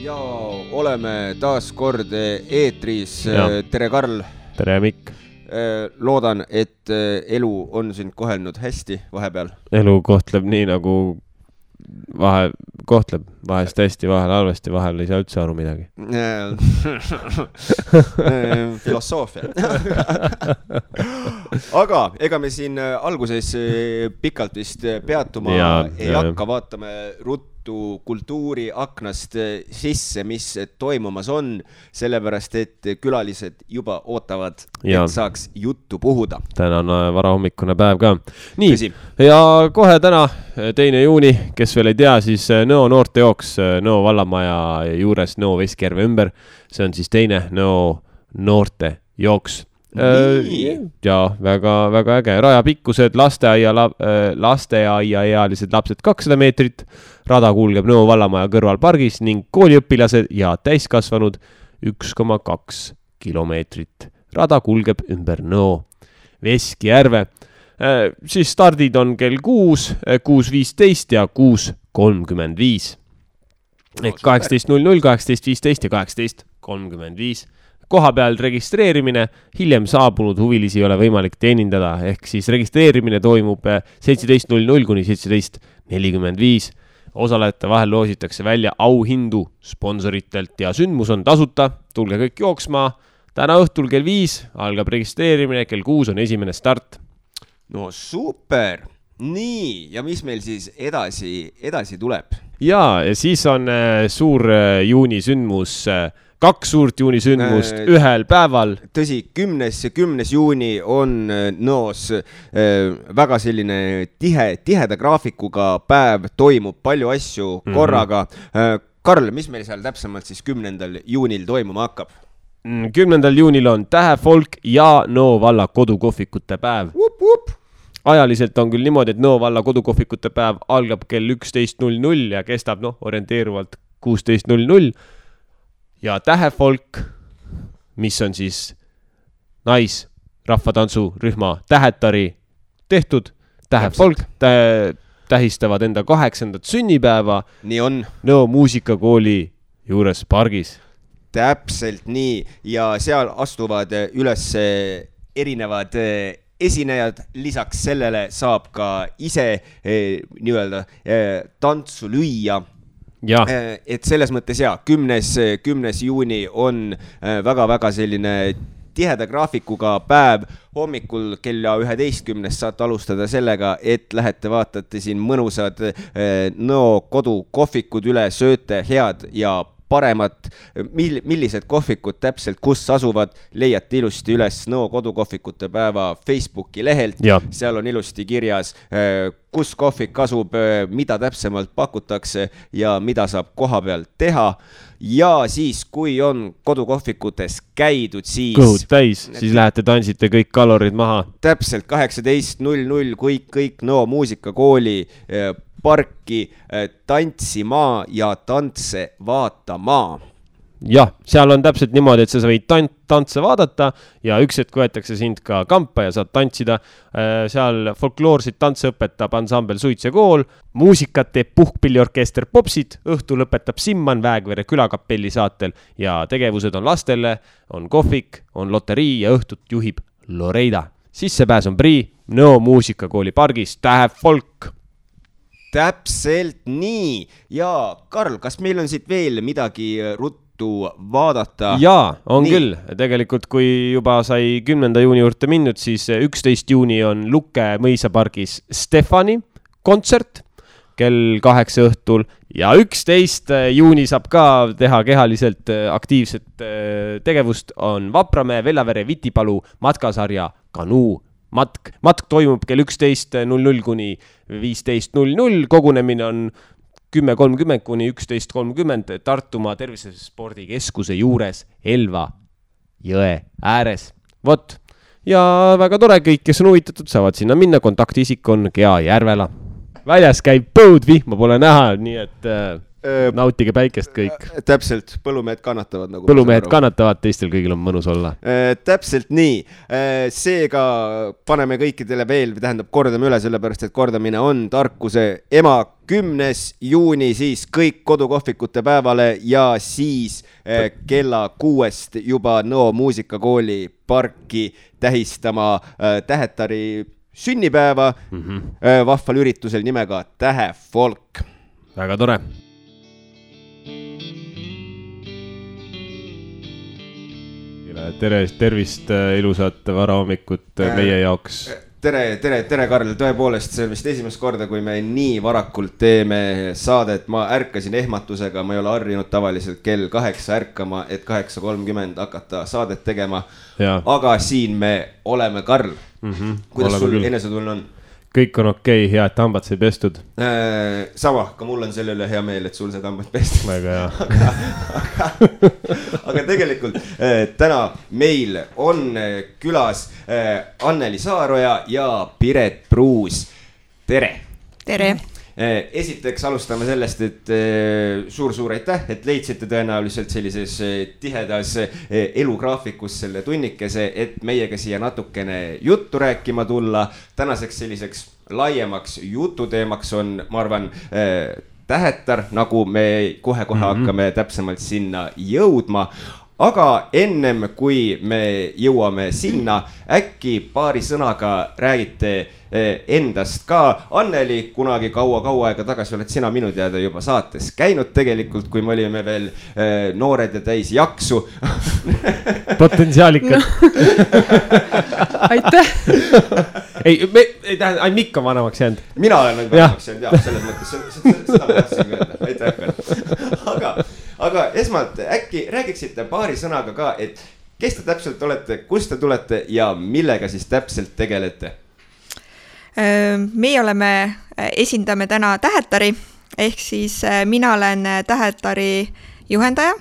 Ja oleme taas kord eetris. Tere Karl. Tere Mikk. Loodan, et elu on sind kohelnud hästi vahepeal. Elu kohtleb nii nagu kohtleb vahest hästi, vahel halvasti, vahel ei saa üldse aru midagi. Filosoofia. Aga ega me siin alguses pikalt vist peatuma ei hakka, vaatame ruttu kultuuri aknast sisse, mis toimumas on, sellepärast, et külalised juba ootavad, et saaks juttu puhuda. Täna on varahommikune päev ka. Nii, ja kohe täna, 2. juuni, kes veel ei tea, siis Nõo noortejooks Nõo vallamaja juures Nõo Veskjärve ümber. See on siis teine Nõo noortejooks. Ja väga äge. Raja pikkused, lasteaiaealised lapsed 200 meetrit, rada kulgeb Nõo vallamaja kõrval pargis ning kooliõpilased ja täiskasvanud 1,2 kilomeetrit. Rada kulgeb ümber Nõo Veskjärve. Siis stardid on kell 6, 6.15 ja 6.35. Ehk 18.00, 18.15 ja 18.35. Koha peal registreerimine, hiljem saabunud huvilisi ei ole võimalik teenindada, ehk siis registreerimine toimub 17.00 kuni 17.45. Osalejate vahel loositakse välja auhindu sponsoritelt ja sündmus on tasuta. Tulge kõik jooksma. Täna õhtul kell 5 algab registreerimine, kell 6 on esimene start. No super! Nii, ja mis meil siis edasi tuleb? Ja siis on suur juunisündmus, 2 suurt juunisündmust ühel päeval. Tõsi, 10. juuni on Nõos väga selline tiheda graafikuga päev, toimub palju asju korraga. Karl, mis meil seal täpsemalt siis 10. juunil toimuma hakkab? 10. juunil on Tähefolk ja Nõo valla kodukohvikute päev. Ajaliselt on küll niimoodi, et Nõo valla kodukohvikute päev algab kell 11.00 ja kestab orienteeruvalt 16.00. Ja Tähefolk, mis on siis naisrahvatantsurühma Tähetari tehtud, Tähefolk tähistavad enda 8. sünnipäeva Nõo muusikakooli juures pargis. Täpselt nii, ja seal astuvad üles erinevad esinejad, lisaks sellele saab ka ise tantsu lüüa. Et selles mõttes 10. juuni on väga väga tiheda graafikuga päev. Hommikul kella 11 saate alustada sellega, et lähete vaatate siin mõnusad Nõo kodukohvikud üle, sööte head ja paremat, millised kohvikud täpselt kus asuvad, leiate ilusti üles Nõo kodukohvikute päeva Facebooki lehelt. Seal on ilusti kirjas, kus kohvik asub, mida täpsemalt pakutakse ja mida saab koha peal teha. Ja siis, kui on kodukohvikutes käidud, siis kõhud täis, siis lähete tantsite kõik kalorid maha. Täpselt 18.00 kõik Nõo muusikakooli parki tantsima ja tantse vaatama. Jah, seal on täpselt niimoodi, et sa võid tantse vaadata ja üks hetk võetakse sind ka kampa ja saad tantsida. Seal folkloorsid tantse õpetab ansambel Suits ja kool, muusikat teeb puhkpilliorkester Popsid, õhtu lõpetab Simman Väegvere külakapelli saatel ja tegevused on lastele, on kohvik, on loterii ja õhtut juhib Loreida. Sissepääs on prii Nõo muusikakooli pargis Tähefolk. Täpselt nii. Ja Karl, kas meil on siit veel midagi ruttu vaadata? Jaa, on nii. Küll. Tegelikult kui juba sai 10. juuni juurde minnud, siis 11. juuni on Lukke mõisapargis Stefani kontsert kell 8 õhtul ja 11. juuni saab ka teha kehaliselt aktiivset tegevust, on Vapramäe, Vellavere, Vitipalu matkasarja Kanuu matk toimub kell 11.00 kuni 15.00, kogunemine on 10.30 kuni 11.30 Tartumaa tervisespordikeskuse juures Elva jõe ääres. Vot, ja väga tore, kõik, kes on huvitatud, saavad sinna minna, kontaktisik on Gea Järvela. Väljas käib põud, vihma pole näha, nii et nautige päikest kõik. Täpselt, põllumehed kannatavad nagu. Põllumehed kannatavad, teistel kõigil on mõnus olla. Täpselt nii. Seega paneme kõikidele veel, tähendab kordame üle, sellepärast et kordamine on tarkuse ema. 10. juuni siis kõik kodukohvikute päevale ja siis kella 6 juba Nõo muusikakooli parki tähistama Tähetari sünnipäeva vahval üritusel nimega Tähefolk. Väga tore. Tervist, ilusat varahommikut meie jaoks. Tere, Karl, tõepoolest, see on vist esimest korda, kui me nii varakult teeme saadet. Ma ärkasin ehmatusega, ma ei ole harjunud tavaliselt kell 8 ärkama, et 8:30 hakata saadet tegema. Ja. Aga siin me oleme, Karl. Kuidas sul enesetunne on? Kõik on okei, hea, et hambad sai pestud. Sama, ka mul on selle üle hea meel, et sul sai hambad pestud. Väga hea. aga tegelikult täna meil on külas Anneli Saaroja ja Piret Pruus. Tere! Tere! Esiteks alustame sellest, et suur aitäh, et leidsite tõenäoliselt sellises tihedas elugraafikus selle tunnikese, et meiega siia natukene juttu rääkima tulla. Tänaseks selliseks laiemaks jututeemaks on, ma arvan, Tähetar, nagu me kohe hakkame täpsemalt sinna jõudma. Aga ennem kui me jõuame sinna, äkki paari sõnaga räägite endast ka. Anneli, kunagi kaua aega tagasi oled sina minu teada juba saates käinud tegelikult, kui me olime veel noored ja täis jaksu. Potentsiaalikad. Aitäh. Ei tähenda, ainult Mikk on vanemaks jäänud. Mina olen nüüd vanemaks jäänud, jah, selles mõttes. Seda ma tahtsin öelda. Aitäh. Aga esmalt äkki räägiksite paari sõnaga ka, et kes te täpselt olete, kust te tulete ja millega siis täpselt tegelete? Meie esindame täna Tähetari, ehk siis mina olen Tähetari juhendaja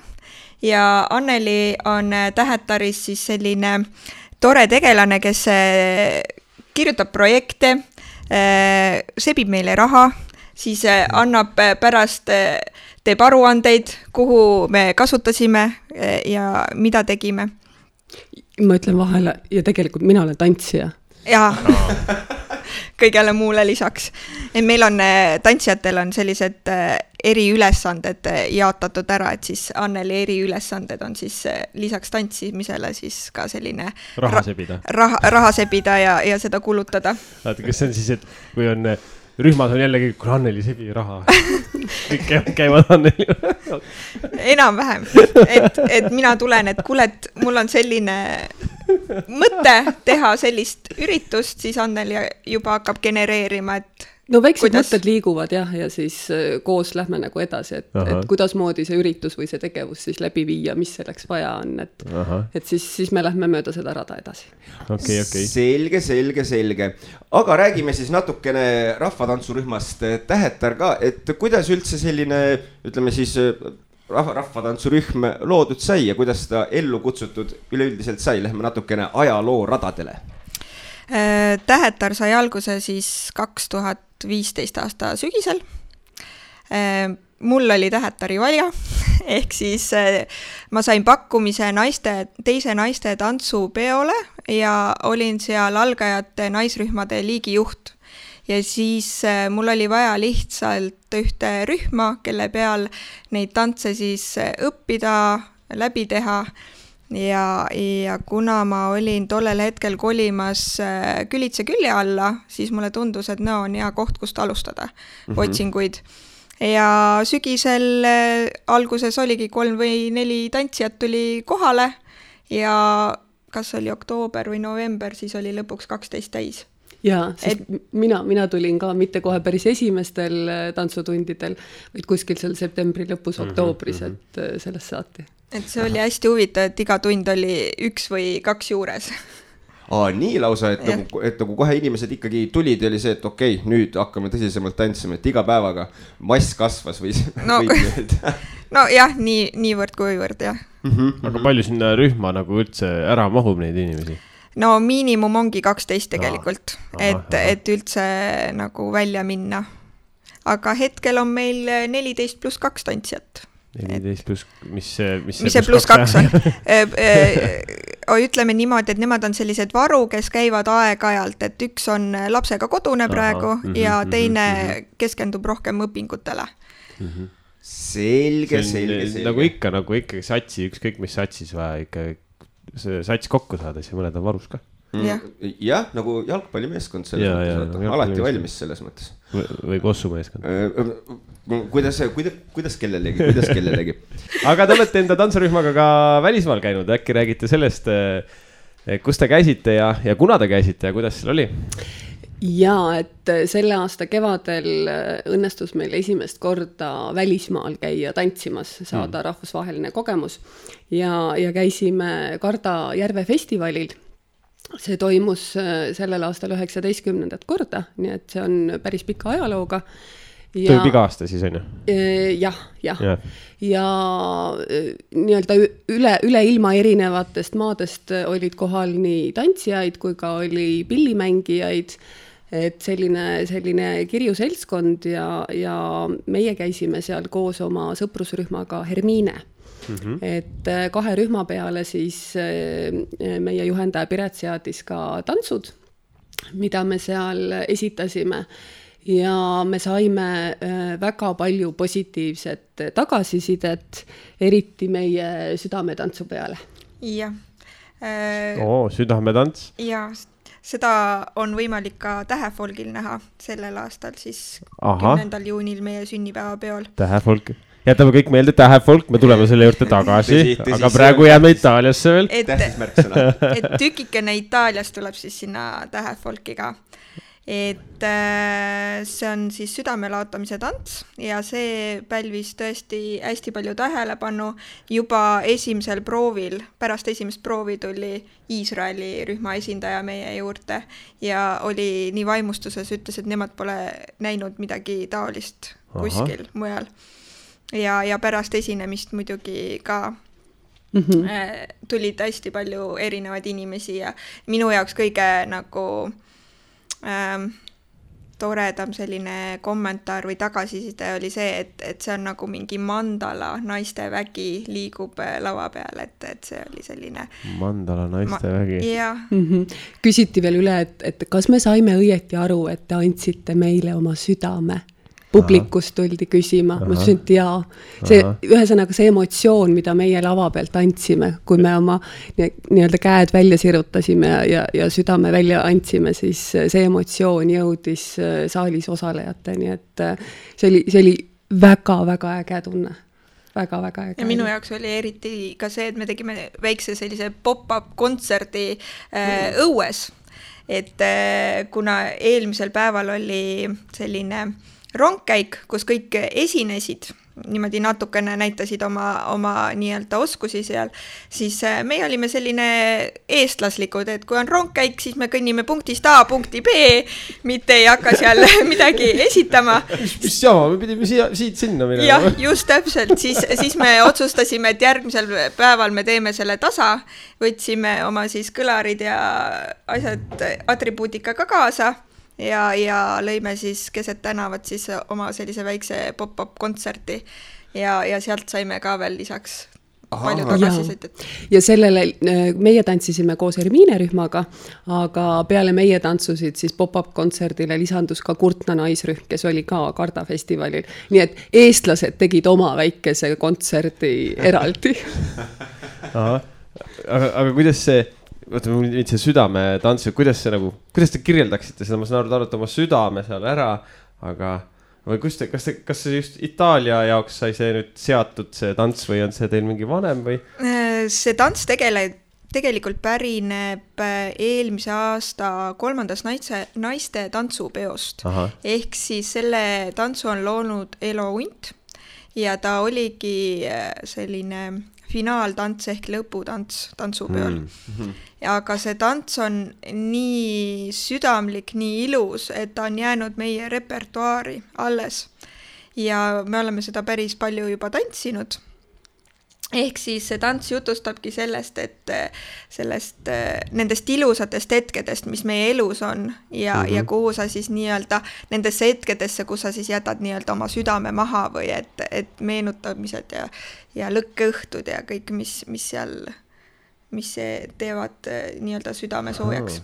ja Anneli on Tähetaris siis selline tore tegelane, kes kirjutab projekte, sebib meile raha, siis annab pärast teeb aruandeid, kuhu me kasutasime ja mida tegime. Ma ütlen vahele, ja tegelikult mina olen tantsija. Jaa, kõigele muule lisaks. Meil on, tantsijatel on sellised eriülesanded jaotatud ära, et siis Anneli eriülesanded on siis lisaks tantsimisele siis ka selline raha sebida ja seda kulutada. Vaata, kas see on siis, et kui on rühmas on jällegi, kui Anneli sebi raha. Kõik käivad Anneli. Enam-vähem. Et mina tulen, et kuule, et mul on selline mõte teha sellist üritust, siis Anneli juba hakkab genereerima, et no väiksed mõtted liiguvad jah, ja siis koos lähme nagu edasi, et kuidas moodi see üritus või see tegevus siis läbi viia, mis selleks vaja on, et siis me lähme mööda seda rada edasi. Okay. Selge. Aga räägime siis natukene rahvatantsurühmast Tähetar ka, et kuidas üldse selline, ütleme siis rahvatantsurühm loodud sai ja kuidas seda ellu kutsutud üleüldiselt sai, lähme natukene ajaloo radadele. Tähetar sai alguse siis 2015 aasta sügisel. Mul oli Tähetari valja, ehk siis ma sain pakkumise teise naiste tantsupeole ja olin seal algajate naisrühmade liigijuht. Ja siis mul oli vaja lihtsalt ühte rühma, kelle peal neid tantse siis õppida, läbi teha. Ja kuna ma olin tollel hetkel kolimas Külitse külje alla, siis mulle tundus, et on hea koht, kust alustada otsinguid. Ja sügisel alguses oligi 3 või 4 tantsijat tuli kohale ja kas oli oktoober või november, siis oli lõpuks 12 täis. Jaa, sest mina tulin ka mitte kohe päris esimestel tantsutundidel, vaid kuskil seal septembri lõpus, oktoobris, et sellest saati. Et see oli hästi huvitav, et iga tund oli 1 või 2 juures. Nii lausa, et nagu kohe inimesed ikkagi tulid ja oli see, et okei, nüüd hakkame tõsisemalt tantsima, et iga päevaga mass kasvas või no jah, niivõrd kuivõrd, jah. Aga palju sinna rühma nagu üldse ära mahub neid inimesi? No miinimum ongi 12 tegelikult, et üldse nagu välja minna. aga hetkel on meil 14+2 tantsijat. 14+, mis see +2 on? Ütleme niimoodi, et nemad on sellised varu, kes käivad aeg-ajalt, et üks on lapsega kodune praegu ja teine keskendub rohkem õpingutele. Selge. Nagu ikka satsi, ükskõik mis satsis vaja ikka see sats kokku saada, siis mõned on varus ka. Jah, nagu jalgpallimeeskond selles mõttes, alati valmis selles mõttes. Või kossumeeskond. Kuidas kellelegi. Aga te olete enda tantsurühmaga ka välismaal käinud, äkki räägite sellest, kus te käisite ja kuna te käisite ja kuidas seal oli? Ja, et selle aasta kevadel õnnestus meil esimest korda välismaal käia tantsimas, saada rahvusvaheline kogemus ja käisime Karda Järve festivalil. See toimus sellel aastal 19. korda, nii et see on päris pika ajalooga. Toimub iga aasta siis on ju? Jah. Ja nii-öelda üle ilma erinevatest maadest olid kohal nii tantsijaid kui ka oli pillimängijaid, et selline kirju seltskond ja meie käisime seal koos oma sõprusrühmaga Hermine. Et 2 rühma peale siis meie juhendaja Piret seadis ka tantsud, mida me seal esitasime ja me saime väga palju positiivset tagasisidet, eriti meie südametantsu peale. Jah. Südametants? Ja, seda on võimalik ka Tähefolgil näha sellel aastal, siis 10. juunil meie sünnipäeva peol. Tähefolk. Jätame kõik meelde Tähefolk, me tuleme selle juurde tagasi, aga praegu jääme Itaaliasse veel. Et tükikene Itaaliast tuleb siis sinna Tähefolkiga. Et see on siis südamelaotamise tants ja see pälvis tõesti hästi palju tähelepanu. Juba esimesel proovil, pärast esimest proovi tuli Iisraeli rühma esindaja meie juurde ja oli nii vaimustuses, ütles, et nemad pole näinud midagi taolist kuskil mujal. Ja pärast esinemist muidugi ka tulid hästi palju erinevaid inimesi ja minu jaoks kõige nagu toredam selline kommentaar või tagasiside oli see, et see on nagu mingi mandala naiste vägi liigub lava peal, et see oli selline mandala naiste vägi. Küsiti veel üle, et kas me saime õieti aru, et te andsite meile oma südame? Publikust tuldi küsima, ma ütlesin, et jaa. Ühesõnaga see emotsioon, mida meie lava pealt andsime, kui me oma nii-öelda käed välja sirutasime ja südame välja andsime, siis see emotsioon jõudis saalis osalejateni, et see oli väga-väga äge tunne. Väga-väga äge. Ja minu jaoks oli eriti ka see, et me tegime väikse sellise pop-up kontserdi õues, et kuna eelmisel päeval oli selline rongkäik, kus kõik esinesid, niimoodi natukene näitasid oma nii-öelda oskusi seal, siis meie olime selline eestlaslikud, et kui on rongkäik, siis me kõnnime punktist A punkti B, mitte ei hakka seal midagi esitama. Mis jama, me pidime siit sinna minema. Jah, just täpselt, siis me otsustasime, et järgmisel päeval me teeme selle tasa, võtsime oma siis kõlarid ja asjad atribuutika ka kaasa. Ja lõime siis keset tänavat siis oma sellise väikse pop-up kontserti ja sealt saime ka veel lisaks palju tagasisidet. Ja sellele meie tantsisime koos Hermine rühmaga, aga peale meie tantsusid siis pop-up kontserdile lisandus ka Kurtna naisrühm, kes oli ka Karda festivalil. Nii et eestlased tegid oma väikese kontserdi eraldi. Aga kuidas see see südame tantsu, kuidas te kirjeldaksite seda, ma saan aru, oma südame seal ära, aga või kas see just Itaalia jaoks sai see nüüd seatud see tants või on see teil mingi vanem või? See tants tegelikult pärineb eelmise aasta 3. naiste tantsupeost. Ehk siis selle tantsu on loonud Elo Unt ja ta oligi selline finaaltants ehk lõputants tantsupeol. Aga see tants on nii südamlik, nii ilus, et ta on jäänud meie repertuaari alles. Ja me oleme seda päris palju juba tantsinud. ehk siis see tants jutustabki sellest, et nendest ilusatest hetkedest, mis meie elus on ja kuhu sa siis nii-öelda nendesse hetkedesse, kus sa siis jätad nii-öelda oma südame maha või et meenutamised ja lõkkeõhtud ja kõik, mis teevad nii-öelda südame soojaks.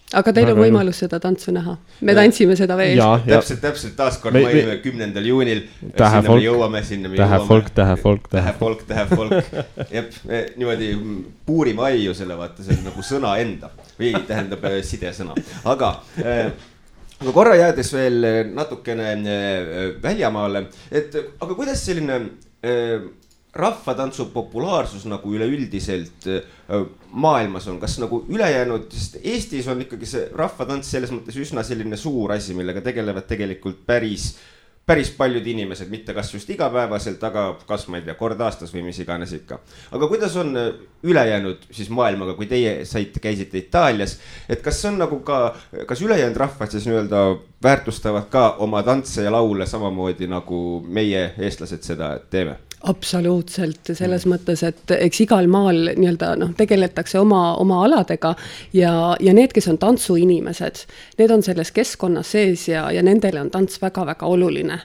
Aga teil on võimalus seda tantsu näha. Me tantsime seda veel. Täpselt taaskord mailime 10. juunil. Sinna me jõuame. Tähe folk. Jep, niimoodi puurime aiu selle vaata, see on nagu sõna enda. Või tähendab sidesõna. Aga korra jäädes veel natukene väljamaale, aga kuidas selline rahvatantsu populaarsus nagu üleüldiselt maailmas on, kas nagu ülejäänud, sest Eestis on ikkagi see rahvatants selles mõttes üsna selline suur asi, millega tegelevad tegelikult päris paljud inimesed, mitte kas just igapäevaselt, aga kas ma ei tea, kord aastas või mis iganes ikka. Aga kuidas on ülejäänud siis maailmaga, kui teie käisite Itaalias, et kas on nagu kas ülejäänud rahvad siis nii-öelda väärtustavad ka oma tantse ja laule samamoodi nagu meie eestlased seda teeme? Absoluutselt, selles mõttes, et eks igal maal nii-öelda tegeletakse oma aladega ja need, kes on tantsuinimesed, need on selles keskkonnas sees ja nendele on tants väga-väga oluline.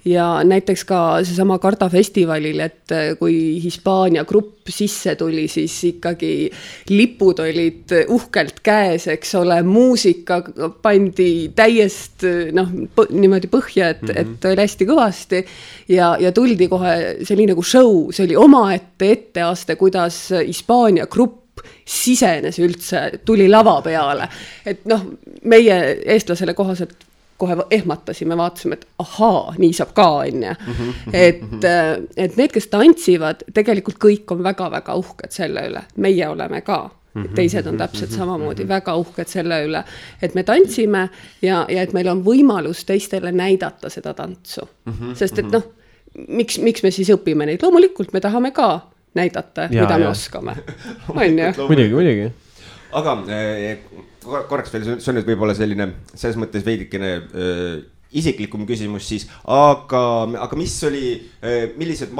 Ja näiteks ka seesama Karda festivalil, et kui Hispaania grupp sisse tuli, siis ikkagi lipud olid uhkelt käes, eks ole, muusika pandi täiest niimoodi põhja, et oli hästi kõvasti ja tuldi kohe oli nagu show, see oli omaette etteaste, kuidas Hispaania grupp sisenes üldse, tuli lava peale. Et meie eestlasele kohaselt kohe ehmatasime, vaatasime, et ahaa, nii saab ka, onja. Et need, kes tantsivad, tegelikult kõik on väga-väga uhked selle üle. Meie oleme ka. Teised on täpselt samamoodi väga uhked selle üle, et me tantsime ja et meil on võimalus teistele näidata seda tantsu. Sest et miks me siis õpime neid? Loomulikult me tahame ka näidata, mida me oskame. Muidugi. Aga korraks veel, see on nüüd võib-olla selline, selles mõttes veidikene isiklikum küsimus siis, aga millised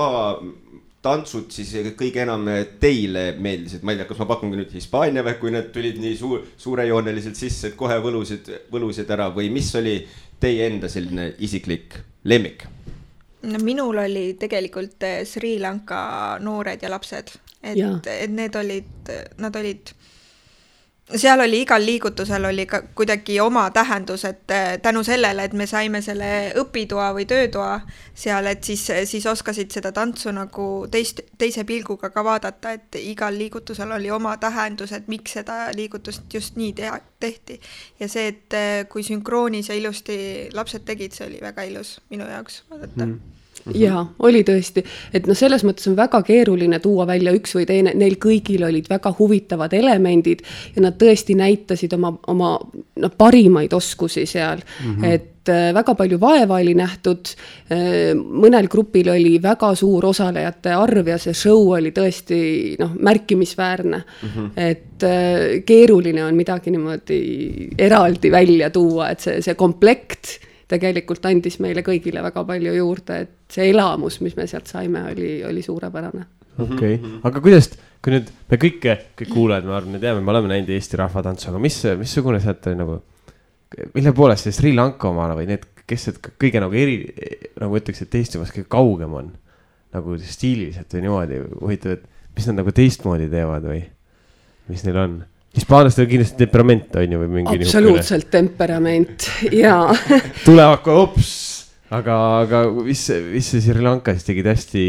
tantsud siis kõige enam teile meeldisid? Ma ei tea, kas ma pakungi nüüd Hispaania või kui need tulid nii suurejooneliselt sisse, et kohe võlusid ära või mis oli teie enda selline isiklik lemmik? Minul oli tegelikult Sri Lanka noored ja lapsed, et nad olid, seal oli igal liigutusel oli ka kuidagi oma tähendus, et tänu sellele, et me saime selle õpitoa või töötoa seal, et siis oskasid seda tantsu nagu teise pilguga ka vaadata, et igal liigutusel oli oma tähendus, et miks seda liigutust just nii tehti. Ja see, et kui sünkroonis ja ilusti lapsed tegid, see oli väga ilus minu jaoks vaadata. Ja, oli tõesti, et selles mõttes on väga keeruline tuua välja üks või teine, neil kõigil olid väga huvitavad elemendid ja nad tõesti näitasid oma parimaid oskusi seal, et väga palju vaeva oli nähtud, mõnel grupil oli väga suur osalejate arv ja see show oli tõesti märkimisväärne, et keeruline on midagi niimoodi eraldi välja tuua, et see komplekt tegelikult andis meile kõigile väga palju juurde, et see elamus, mis me sealt saime, oli suurepärane. Okei. Aga kuidas, kui nüüd me kõik kuulajad, ma arvan, me teame, me oleme näinud Eesti rahvatantsu, aga missugune sealt oli nagu, mille poolest see Sri Lanka omana või need, kes kõige nagu nagu ütleks, et Eestimas kõige kaugem on, nagu stiililiselt või niimoodi huvitav, et mis nad nagu teistmoodi teevad või mis neil on? Hispaanlastel on kindlasti temperament, on ju, või mingi absoluutselt temperament, jaa. Tulevad kohe hops, aga mis see Sri Lanka siis tegid hästi,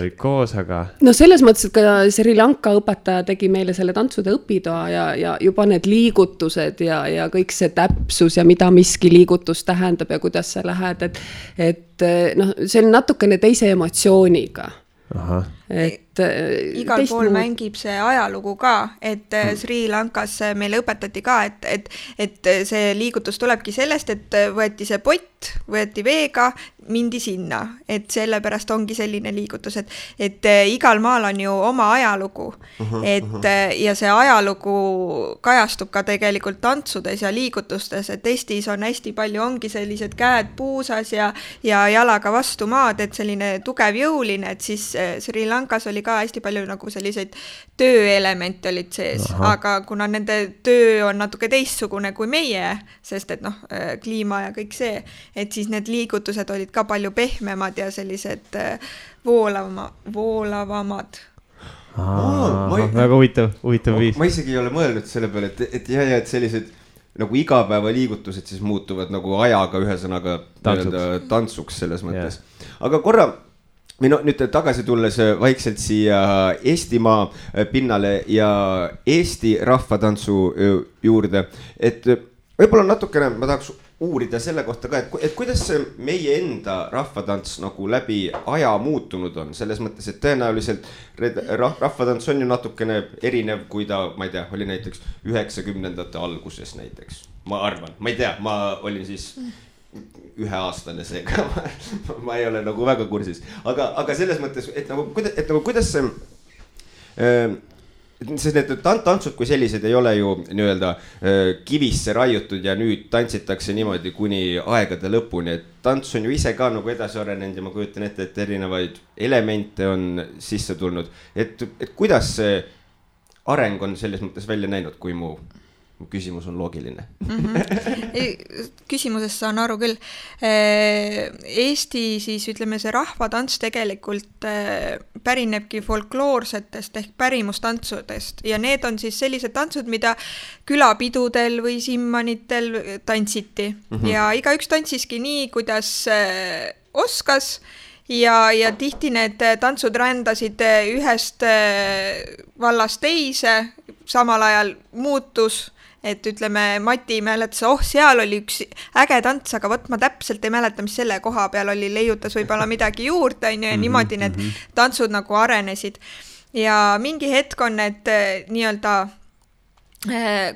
olid koos, aga... No selles mõttes, et ka Sri Lanka õpetaja tegi meile selle tantsude õpitoa ja juba need liigutused ja kõik see täpsus ja mida miski liigutus tähendab ja kuidas sa lähed, et see on natukene teise emotsiooniga. Aha. Igal pool mängib see ajalugu ka, et Sri Lankas meile õpetati ka, et see liigutus tulebki sellest, et võeti see pott, võeti veega, mindi sinna, et sellepärast ongi selline liigutus, et igal maal on ju oma ajalugu, ja see ajalugu kajastub ka tegelikult tantsudes ja liigutustes, et Eestis on hästi palju, ongi sellised käed puusas ja jalaga vastu maad, et selline tugev jõuline, et siis Sri Lankas oli ka hästi palju nagu selliseid tööelemente olid sees, aga kuna nende töö on natuke teistsugune kui meie, sest et kliima ja kõik see, et siis need liigutused olid ka palju pehmemad ja sellised voolavamad. Väga huvitav viis. Ma isegi ei ole mõelnud selle peale, et sellised nagu igapäevaliigutused siis muutuvad nagu ajaga ühesõnaga tantsuks selles mõttes. Aga korra nüüd tagasi tulles vaikselt siia Eestimaa pinnale ja Eesti rahvatantsu juurde, et võib-olla natukene ma tahaks uurida selle kohta ka, et kuidas meie enda rahvatants nagu läbi aja muutunud on, selles mõttes, et tõenäoliselt rahvatants on ju natukene erinev, kui ta, ma ei tea, oli näiteks 90ndate alguses näiteks. Ma arvan, ma ei tea, ma olin siis 1-aastane seega, ma ei ole nagu väga kursis. Aga selles mõttes, et kuidas see... Sest need tantsud kui sellised ei ole ju nii-öelda kivisse raiutud ja nüüd tantsitakse niimoodi kuni aegade lõpuni, et tants on ju ise ka nagu edasi arenenud ja ma kujutan ette, et erinevaid elemente on sisse tulnud, et kuidas see areng on selles mõttes välja näinud, kui mu küsimus on loogiline. Küsimusest saan aru küll. Eesti siis ütleme see rahvatants tegelikult pärinebki folkloorsetest ehk pärimustantsudest ja need on siis sellised tantsud, mida külapidudel või simmanitel tantsiti ja igaüks tantsiski nii, kuidas oskas ja tihti need tantsud rändasid ühest vallast teise, samal ajal muutus, et ütleme, Mati mäletas, seal oli üks äge tants, aga ma täpselt ei mäleta, mis selle koha peal oli, leiutas võib-olla midagi juurde, ja niimoodi need tantsud nagu arenesid. Ja mingi hetk on need nii-öelda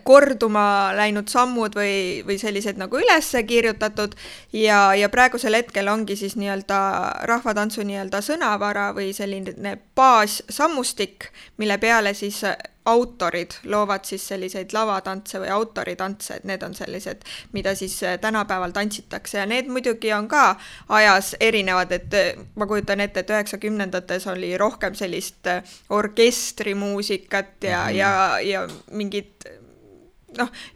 korduma läinud sammud või sellised nagu üles kirjutatud ja praegusel hetkel ongi siis nii-öelda rahvatantsu nii-öelda sõnavara või selline baassammustik, mille peale siis autorid loovad siis selliseid lavatantse või autoritantse, et need on sellised, mida siis tänapäeval tantsitakse ja need muidugi on ka ajas erinevad, et ma kujutan ette, et 90ndates oli rohkem sellist orkestrimuusikat ja mingid,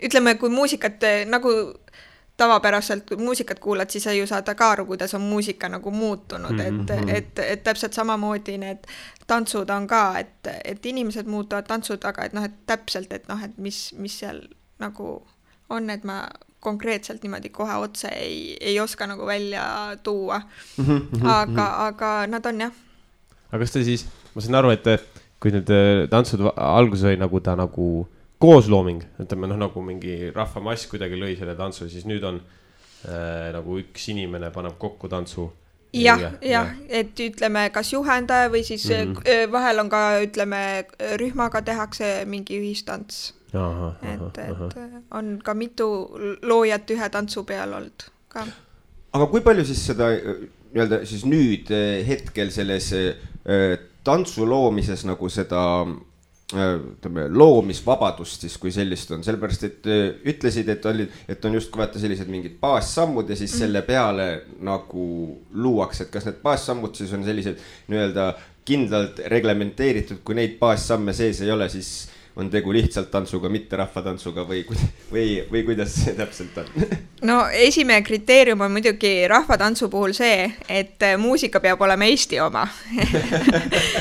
ütleme, kui muusikat nagu tavapäraselt muusikat kuulad, siis sa ju saad ka aru, kuidas on muusika nagu muutunud, et täpselt samamoodi need tantsud on ka, et inimesed muutuvad tantsud, aga et täpselt, et mis seal nagu on, et ma konkreetselt niimoodi kohe otse ei oska nagu välja tuua, aga nad on jah. Aga kas te siis, ma saan aru, et kui need tantsud alguses oli nagu ta nagu kooslooming, ütleme nagu mingi rahvamass kuidagi lõi selle tantsu, siis nüüd on nagu üks inimene paneb kokku tantsu. Jah, et ütleme, kas juhendaja või siis vahel on ka, ütleme, rühmaga tehakse mingi ühistants. Et on ka mitu loojat ühe tantsu peal olnud ka. Aga kui palju siis seda nii-öelda siis nüüd hetkel selles tantsu loomises nagu seda loomisvabadust siis kui sellist on, sellepärast et ütlesid, et on just vaata sellised mingid baassammud ja siis selle peale nagu luuakse, et kas need baassammud siis on sellised nii-öelda kindlalt reglementeeritud, kui neid baassamme sees ei ole, siis on tegu lihtsalt tantsuga, mitte rahvatantsuga või kuidas see täpselt on? No esimene kriteerium on muidugi rahvatantsu puhul see, et muusika peab olema Eesti oma.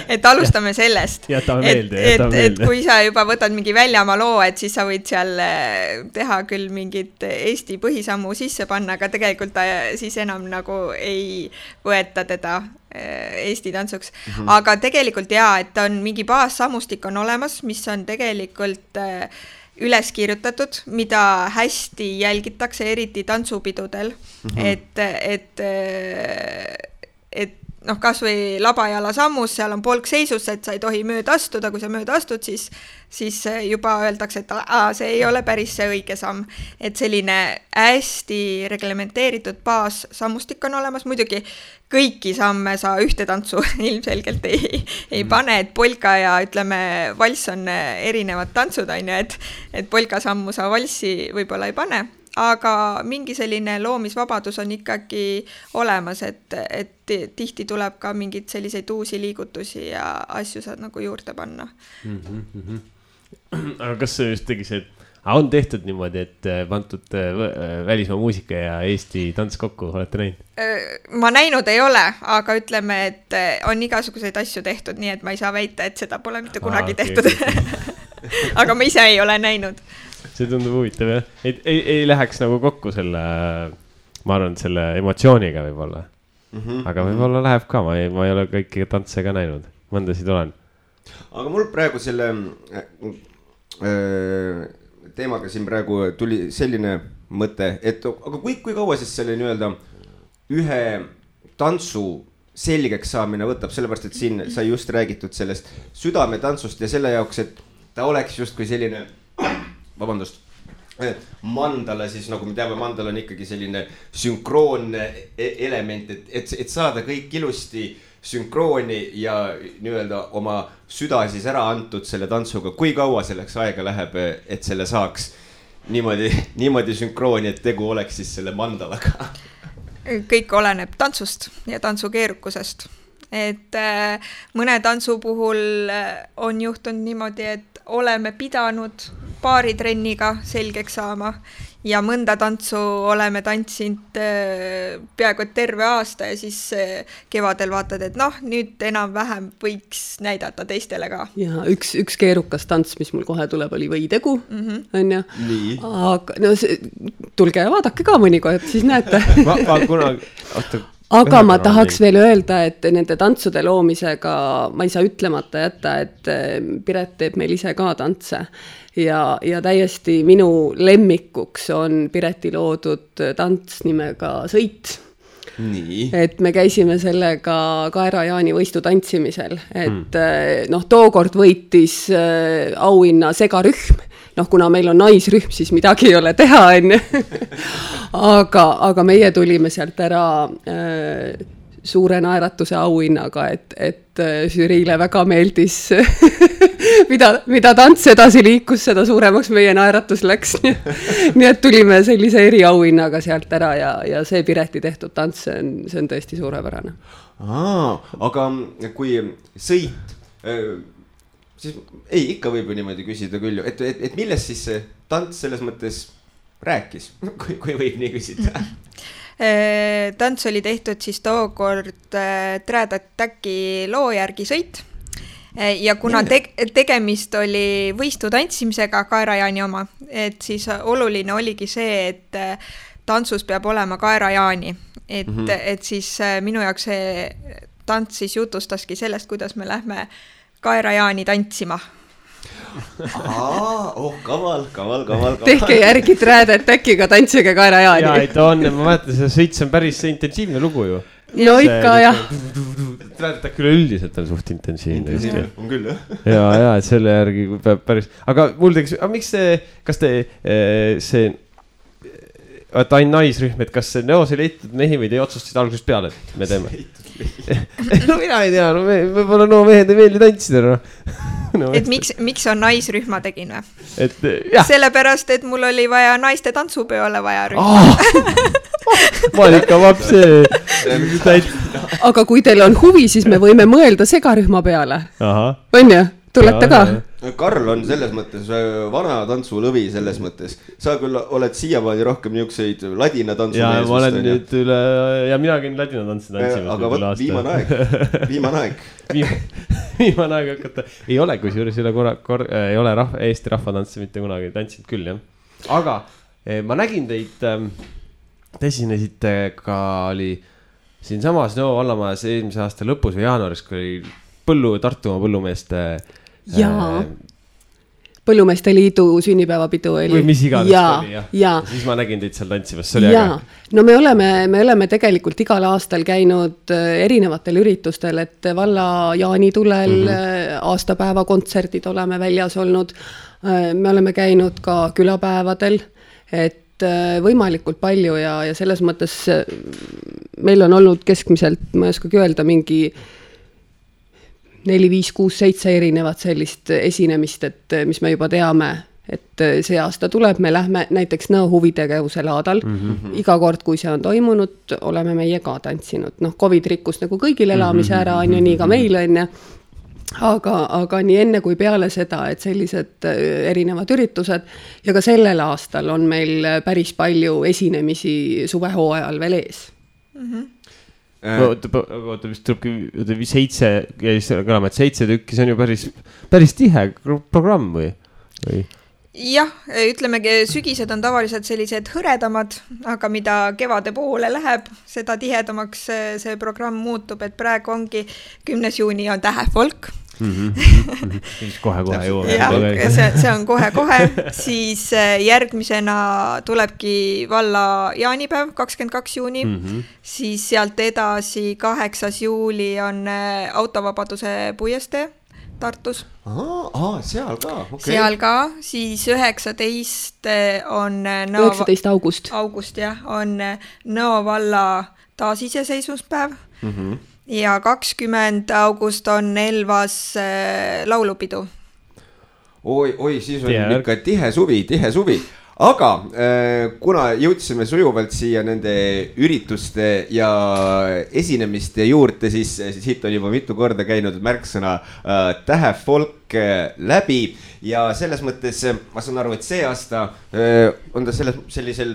Et alustame sellest. Jätame meelde. Et kui sa juba võtad mingi väljamaa loo, et siis sa võid seal teha küll mingit Eesti põhisammu sisse panna, aga tegelikult ta siis enam nagu ei võeta teda Eesti tantsuks. Aga tegelikult et on mingi baassammustik on olemas, mis on tegelikult üles kirjutatud, mida hästi jälgitakse, eriti tantsupidudel, et kas või labajala sammus, seal on polk seisus, et sa ei tohi mööda astuda, kui sa mööda astud, siis juba öeldakse, et see ei ole päris see õige samm. Et selline hästi reglementeeritud baassammustik on olemas, muidugi kõiki samme sa ühte tantsu ilmselgelt ei pane, et polka ja ütleme, valss on erinevad tantsud, et polka sammu sa valssi võib-olla ei pane, aga mingi selline loomisvabadus on ikkagi olemas, et tihti tuleb ka mingeid selliseid uusi liigutusi ja asju saad nagu juurde panna. Aga kas see just tegi see, on tehtud niimoodi, et pandud välismaa muusika ja Eesti tants kokku, olete näinud? Ma näinud ei ole, aga ütleme, et on igasuguseid asju tehtud, nii et ma ei saa väita, et seda pole mitte kunagi tehtud. Aga ma ise ei ole näinud. See tundub huvitav, jah? Ei läheks nagu kokku selle, ma arvan, selle emotsiooniga võib-olla. Aga võib-olla läheb ka, ma ei ole kõiki tantse ka näinud. Mõndasid olen. Aga mul praegu selle teemaga siin praegu tuli selline mõte, et aga kui kaua siis selle nii-öelda ühe tantsu selgeks saamine võtab, sellepärast, et siin sai just räägitud sellest südametantsust ja selle jaoks, et ta oleks justkui selline, vabandust, mandala siis, nagu me teame, mandala on ikkagi selline sünkroonne element, et saada kõik ilusti sünkrooni ja nii-öelda oma süda siis ära antud selle tantsuga. Kui kaua selleks aega läheb, et selle saaks niimoodi sünkrooni, et tegu oleks siis selle mandalaga? Kõik oleneb tantsust ja tantsu keerukusest. Et mõne tantsu puhul on juhtunud niimoodi, et oleme pidanud paari trenniga selgeks saama ja mõnda tantsu oleme tantsinud peaaegu terve aasta ja siis kevadel vaatad, et nüüd enam-vähem võiks näidata teistele ka. Ja üks keerukas tants, mis mul kohe tuleb, oli võitegu, on ju. Aga tulge ja vaadake ka mõnikord, siis näete. Aga ma tahaks veel öelda, et nende tantsude loomisega ma ei saa ütlemata jätta, et Piret teeb meil ise ka tantse. Ja täiesti minu lemmikuks on Pireti loodud tants nimega Sõit. Nii. Et me käisime sellega Kaera-Jaani võistu tantsimisel, et tookord võitis auhinna segarühm. Kuna meil on naisrühm, siis midagi ei ole teha, enne. Aga meie tulime sealt ära suure naeratuse auhinnaga, et žüriile väga meeldis, mida tants edasi liikus, seda suuremaks meie naeratus läks. Nii et tulime sellise eriauhinnaga sealt ära ja see Pireti tehtud tants, see on tõesti suurepärane. Aga kui Sõit... siis ikka võib ju niimoodi küsida küll ju, et millest siis see tants selles mõttes rääkis, kui võib nii küsida? Tants oli tehtud siis tookord Trad Attacki loo järgi Sõit ja kuna tegemist oli võistu tantsimisega Kaera-Jaani oma, et siis oluline oligi see, et tantsus peab olema Kaera-Jaani, et siis minu jaoks see tants siis jutustaski sellest, kuidas me lähme Kaera-Jaani tantsima. Kaval. Tehke järgi Trad Attackiga tantsige Kaera-Jaani. Jaa, et on, ma mäletan, see Sõit on päris intensiivne lugu ju. No ikka, jah. Trad Attack üleüldiselt on suht intensiivne. On küll, jah. Ja, et selle järgi peab päris... Aga mul teeks, miks kas te see... et ainult naisrühm, et kas see Neos ei leitud mehi või te otsustasid algusest peale, et me teeme? No mina ei tea, võib-olla mehed ei meeldi tantsida. Et miks on naisrühma tegin või? Jah. Sellepärast, et mul oli vaja naiste tantsupeole vaja rühma. Malika vapse. Aga kui teil on huvi, siis me võime mõelda segarühma peale. On ju? Tulete ka? Karl on selles mõttes vana tantsulõvi selles mõttes. Sa küll oled siiamaani rohkem niukseid ladina tantsu mees. Ja ma olen nüüd üle, ja mina käin ladina tantsu tantsimas. Aga võt, viimane aeg. Viimane aeg hakata. Ei ole, kui juures ei ole Eesti rahvatantsi mitte kunagi tantsinud küll, jah. Aga ma nägin teid, te esinesite ka oli siin samas Nõo vallamajas eelmise aasta lõpus või jaanuaris, kui oli Tartumaa põllumeeste Jaa, Põllumeeste Liidu sünnipäevapidu oli. Või mis iganes oli, jah. Siis ma nägin teid seal tantsimas, see oli äge. No me oleme tegelikult igal aastal käinud erinevatel üritustel, et valla jaanitulel aastapäeva kontserdid oleme väljas olnud. Me oleme käinud ka külapäevadel, et võimalikult palju ja selles mõttes meil on olnud keskmiselt, ma ei oskagi öelda, mingi 4, 5, 6, 7 erinevat sellist esinemist, et mis me juba teame, et see aasta tuleb, me lähme näiteks Nõo huvitegevuse laadal. Iga kord, kui see on toimunud, oleme meie ka tantsinud. COVID rikkus nagu kõigil elamise ära, on ju, nii ka meil on ja aga nii enne kui peale seda, et sellised erinevad üritused ja ka sellel aastal on meil päris palju esinemisi suvehooajal veel ees. Oota, vist tulebki 7 tükki, see on ju päris tihe programm või? Jah, ütlemegi, sügised on tavaliselt sellised hõredamad, aga mida kevade poole läheb, seda tihedamaks see programm muutub, et praegu ongi 10. juuni on tähefolk. Kohe jõuame. See on kohe, siis järgmisena tulebki valla jaanipäev, 22. juuni, siis sealt edasi 8. juuli on autovabaduse puiestee Tartus. Seal ka, okei. Seal ka, siis 19. on 19. august, jah, on Nõo valla taasiseseisvuspäev ja 20. august on Elvas laulupidu. Oi, siis on ikka tihe suvi. Aga kuna jõudsime sujuvalt siia nende ürituste ja esinemiste juurde, siis siit on juba mitu korda käinud märksõna tähefolk läbi ja selles mõttes ma saan aru, et see aasta on ta sellisel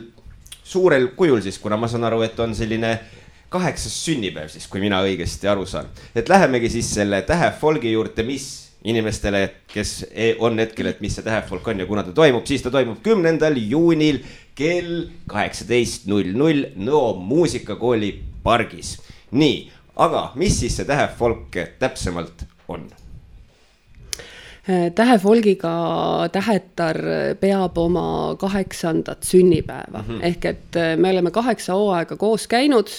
suurel kujul siis, kuna ma saan aru, et on selline 8. sünnipäev siis, kui mina õigesti aru saan. Et lähemegi siis selle tähefolgi juurde, mis inimestele, kes on hetkel, et mis see tähefolk on ja kuna ta toimub, siis ta toimub 10. juunil kell 18:00 Nõo muusikakooli pargis. Nii, aga mis siis see tähefolk täpsemalt on? Tähefolgiga Tähetar peab oma 8. sünnipäeva. Ehk et me oleme 8 hooaega koos käinud,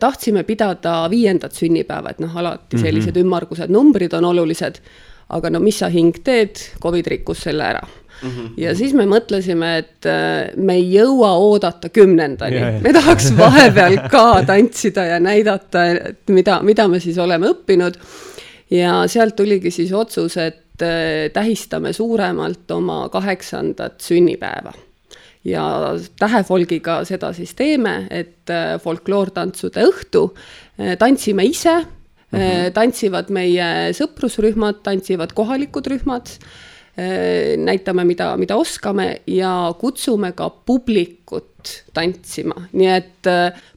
tahtsime pidada 5. sünnipäeva, et alati sellised ümmargused numbrid on olulised, aga mis sa hing teed, COVID rikkus selle ära. Ja siis me mõtlesime, et me ei jõua oodata 10. Me tahaks vahepeal ka tantsida ja näidata, et mida me siis oleme õppinud. Ja sealt tuligi siis otsus, et tähistame suuremalt oma 8. sünnipäeva. Ja tähefolgiga seda siis teeme, et folkloortantsude õhtu tantsime ise, tantsivad meie sõprusrühmad, tantsivad kohalikud rühmad, näitame, mida oskame ja kutsume ka publikut tantsima. Nii et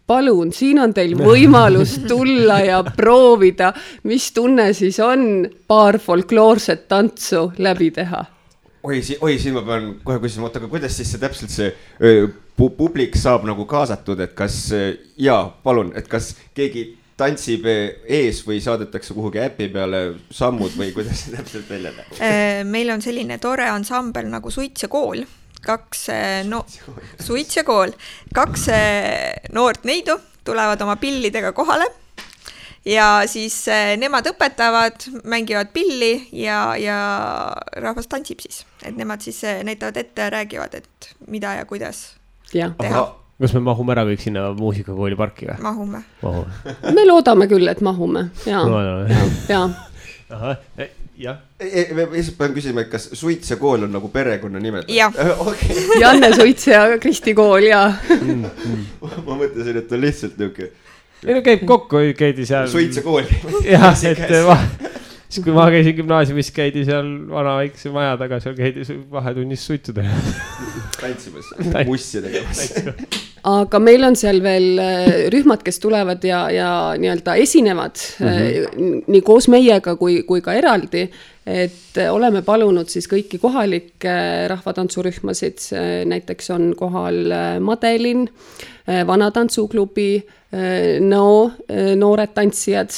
palun, siin on teil võimalus tulla ja proovida, mis tunne siis on paar folkloorset tantsu läbi teha. Oi, siin ma pean kohe küsima, aga kuidas siis see täpselt see publik saab nagu kaasatud, et kas, palun, et kas keegi tantsib ees või saadetakse kuhugi äpi peale sammud või kuidas see täpselt välja näeb? Meil on selline tore ansambel nagu Suits ja kool. Suits ja kool. 2 noort neidu tulevad oma pillidega kohale ja siis nemad õpetavad, mängivad pilli ja rahvas tantsib siis. Et nemad siis näitavad ette ja räägivad, et mida ja kuidas teha. Kas me mahume ära kõik sinna muusikakooli parki või? Mahume. Me loodame küll, et mahume. Ja. Aha, jah. Ma pean küsima, et kas Suits ja kool on nagu perekonna nimed? Jah. Okay. Janne Suits ja Kristi kool, ja. Ma mõtlesin, et on lihtsalt niuke. Meil käib kokku, käidi seal. Suits ja kool. Jah, siis kui ma käisin gümnaasiumis, käidi seal vana väikse maja taga, seal käidi vahetunnis suitsuda. Tantsimas, mussi tegemas. Aga meil on seal veel rühmad, kes tulevad ja nii-öelda esinevad nii koos meiega kui ka eraldi, et oleme palunud siis kõiki kohalikke rahvatantsurühmasid, näiteks on kohal Madelin, Vanatantsuuklubi, noored tantsijad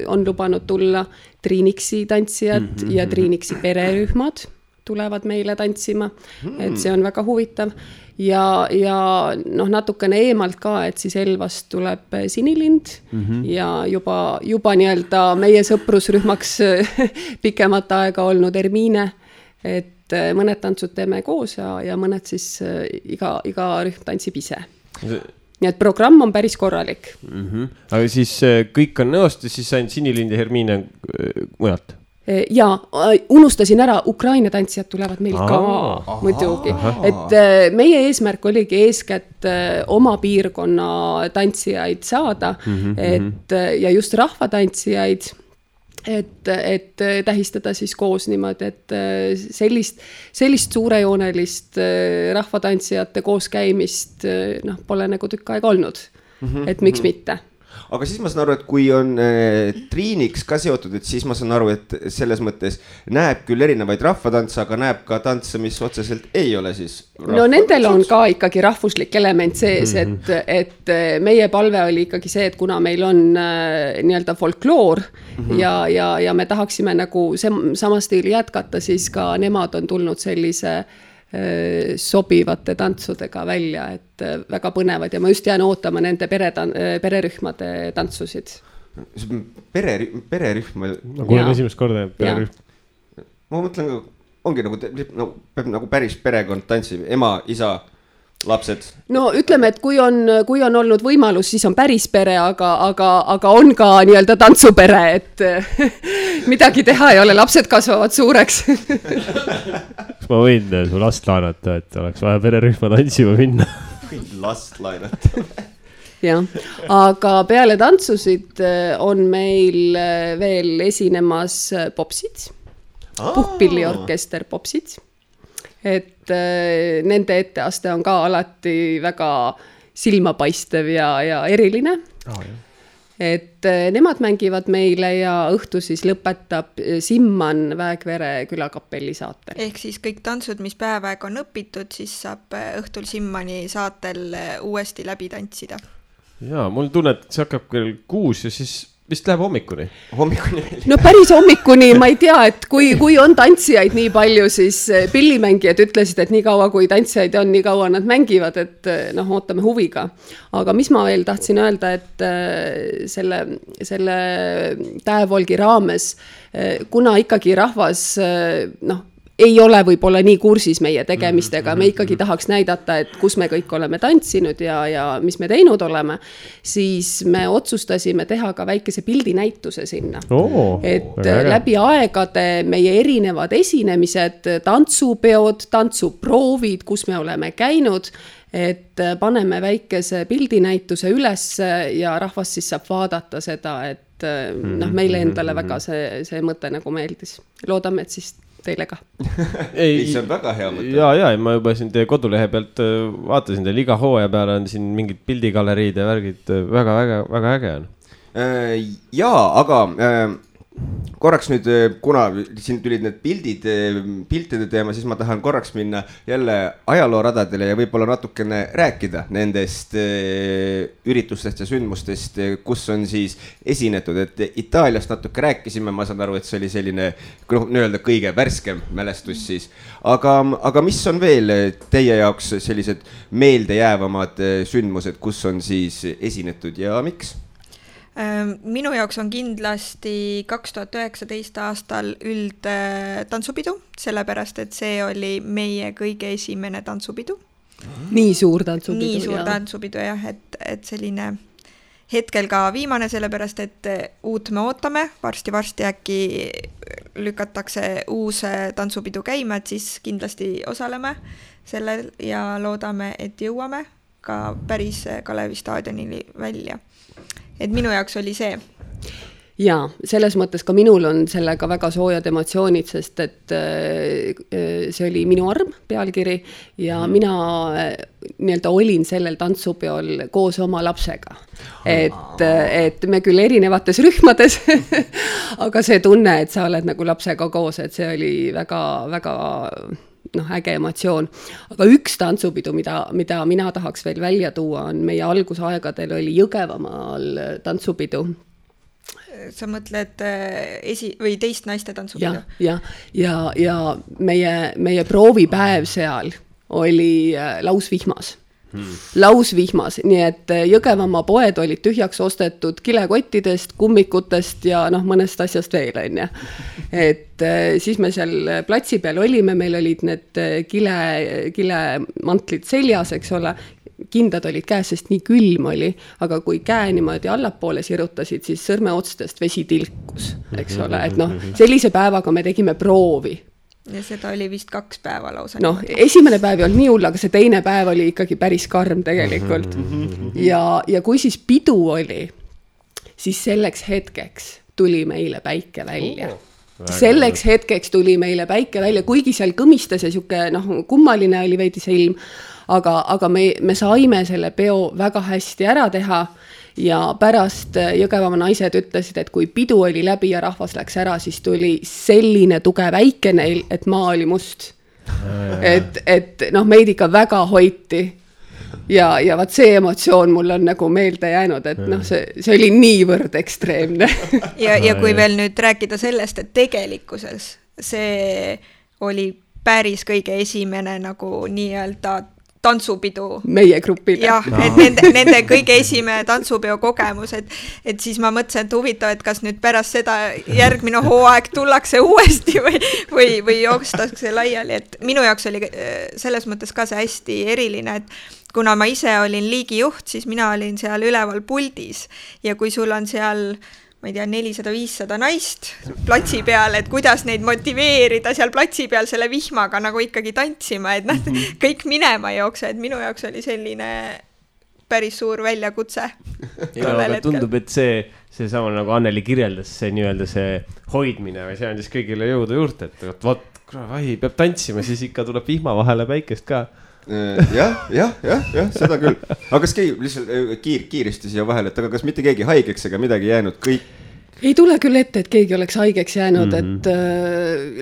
on lubanud tulla, Triiniksi tantsijad ja Triiniksi pererühmad tulevad meile tantsima, et see on väga huvitav. Ja natukene eemalt ka, et siis Elvast tuleb Sinilind ja juba nii-öelda meie sõprusrühmaks pikemat aega olnud Ermiine, et mõned tantsud teeme koos ja mõned siis iga rühm tantsib ise. Nii et programm on päris korralik. Aga siis kõik on Nõost ja siis ainult Sinilind ja Hermiine mujalt? ja unustasin ära, Ukraina tantsijad tulevad meil ka muidugi. Et meie eesmärk oligi eeskätt oma piirkonna tantsijaid saada, et, ja just rahvatantsijaid, et tähistada siis koos niimoodi, et sellist suurejoonelist rahvatantsijate koos käimist pole nagu tükk aega olnud, et miks mitte. Aga siis ma saan aru, et kui on Triiniks ka seotud, et siis ma saan aru, et selles mõttes näeb küll erinevaid rahvatantse, aga näeb ka tantse, mis otseselt ei ole siis no nendel on ka ikkagi rahvuslik element sees, et meie palve oli ikkagi see, et kuna meil on nii-öelda folkloor ja me tahaksime nagu sama stiili jätkata, siis ka nemad on tulnud sellise sobivate tantsudega välja, et väga põnevad ja ma just jään ootama nende pererühmade tantsusid. Pererühm? Ma kuulen esimest korda pererühm. Ma mõtlen, ongi nagu, peab nagu päris perekond tantsib, ema, isa, lapsed. No ütleme, et kui on olnud võimalus, siis on päris pere, aga on ka nii-öelda tantsupere, et midagi teha ei ole, lapsed kasvavad suureks. Kas ma võin su last laenata, et oleks vaja pererühma tantsima minna? Võin last laenata. Jah, aga peale tantsusid on meil veel esinemas popsid, puhkpilliorkester popsid. Et nende etteaste on ka alati väga silmapaistev ja eriline. Et nemad mängivad meile ja õhtu siis lõpetab Simman Väekvere külakapelli saatel. Ehk siis kõik tantsud, mis päevaeg on õpitud, siis saab õhtul Simmani saatel uuesti läbi tantsida. Jaa, mul tunne, et see hakkab kell 6 ja siis vist läheb hommikuni. Hommikuni veel. No päris hommikuni, ma ei tea, et kui on tantsijaid nii palju, siis pillimängijad ütlesid, et nii kaua kui tantsijaid on, nii kaua nad mängivad, et ootame huviga. Aga mis ma veel tahtsin öelda, et selle Täevolgi raames, kuna ikkagi rahvas, ei ole võib-olla nii kursis meie tegemistega, me ikkagi tahaks näidata, et kus me kõik oleme tantsinud ja mis me teinud oleme, siis me otsustasime teha ka väikese pildinäituse sinna. Et läbi aegade meie erinevad esinemised, tantsupeod, tantsuproovid, kus me oleme käinud, et paneme väikese pildinäituse üles ja rahvas siis saab vaadata seda, et meile endale väga see mõte nagu meeldis. Loodame, et siis teile ka. Ei, see on väga hea mõte. Ja, ma juba siin teie kodulehe pealt vaatasin teil iga hooaja peale on siin mingid pildigaleriid ja värgid, väga äge on. Jaa, aga korraks nüüd, kuna siin tulid need piltide teema, siis ma tahan korraks minna jälle ajalooradadele ja võib-olla natukene rääkida nendest üritustest ja sündmustest, kus on siis esinetud, et Itaaliast natuke rääkisime, ma saan aru, et see oli selline nii-öelda kõige värskem mälestus siis, aga mis on veel teie jaoks sellised meeldejäävamad sündmused, kus on siis esinetud ja miks? Minu jaoks on kindlasti 2019 aastal üldtantsupidu, sellepärast et see oli meie kõige esimene tantsupidu. Nii suur tantsupidu. Nii suur tantsupidu jah, et selline hetkel ka viimane, sellepärast et uut me ootame, varsti äkki lükatakse uus tantsupidu käima, et siis kindlasti osaleme sellel ja loodame, et jõuame ka päris Kalevi staadionini välja. Et minu jaoks oli see. Jaa, selles mõttes ka minul on sellega väga soojad emotsioonid, sest et see oli minu arm pealkiri ja mina nii-öelda olin sellel tantsupeol koos oma lapsega. Et me küll erinevates rühmades, aga see tunne, et sa oled nagu lapsega koos, et see oli väga äge emotsioon. Aga üks tantsupidu, mida mina tahaks veel välja tuua, on meie algusaegadel oli Jõgevamaal tantsupidu. Sa mõtled või teist naiste tantsupidu? Ja meie proovipäev seal oli lausvihmas. Lausvihmas, nii et Jõgevamaa poed olid tühjaks ostetud kilekottidest, kummikutest ja mõnest asjast veel on. Et siis me seal platsi peal olime, meil olid need kilemantlid seljas, eks ole, kindad olid käes, sest nii külm oli, aga kui käe niimoodi allapoole sirutasid, siis sõrmeotstest vesi tilkus, eks ole, et noh, sellise päevaga me tegime proovi. Ja seda oli vist 2 päeva lausa. Noh, esimene päev ei olnud nii hull, aga see teine päev oli ikkagi päris karm tegelikult. Ja kui siis pidu oli, siis selleks hetkeks tuli meile päike välja. Selleks hetkeks tuli meile päike välja, kuigi seal kõmistas ja siuke, kummaline oli veidi see ilm, aga me saime selle peo väga hästi ära teha ja pärast Jõgevamaa naised ütlesid, et kui pidu oli läbi ja rahvas läks ära, siis tuli selline tugev äike neil, et maa oli must. Et meid ikka väga hoiti. Ja vaat see emotsioon mul on nagu meelde jäänud, et see oli niivõrd ekstreemne. Ja kui veel nüüd rääkida sellest, et tegelikkuses see oli päris kõige esimene nagu nii-öelda tantsupidu. Meie grupile. Jah, et nende kõige esimene tantsupeo kogemus, et siis ma mõtlesin, et huvitav, et kas nüüd pärast seda järgmine hooaeg tullakse uuesti või joostakse laiali, et minu jaoks oli selles mõttes ka see hästi eriline, et kuna ma ise olin liigijuht, siis mina olin seal üleval puldis ja kui sul on seal, ma ei tea, 400-500 naist platsi peal, et kuidas neid motiveerida seal platsi peal selle vihmaga nagu ikkagi tantsima, et kõik minema jookse, et minu jaoks oli selline päris suur väljakutse. Ja tundub, et see sama nagu Anneli kirjeldas, see nii-öelda see hoidmine või see andis kõigile jõuda juurde, et vot, peab tantsima, siis ikka tuleb vihma vahele päikest ka. jah, seda küll. Aga kas keegi lihtsalt kiiristi siia vahele, et aga kas mitte keegi haigeks ega midagi jäänud, kõik? Ei tule küll ette, et keegi oleks haigeks jäänud, et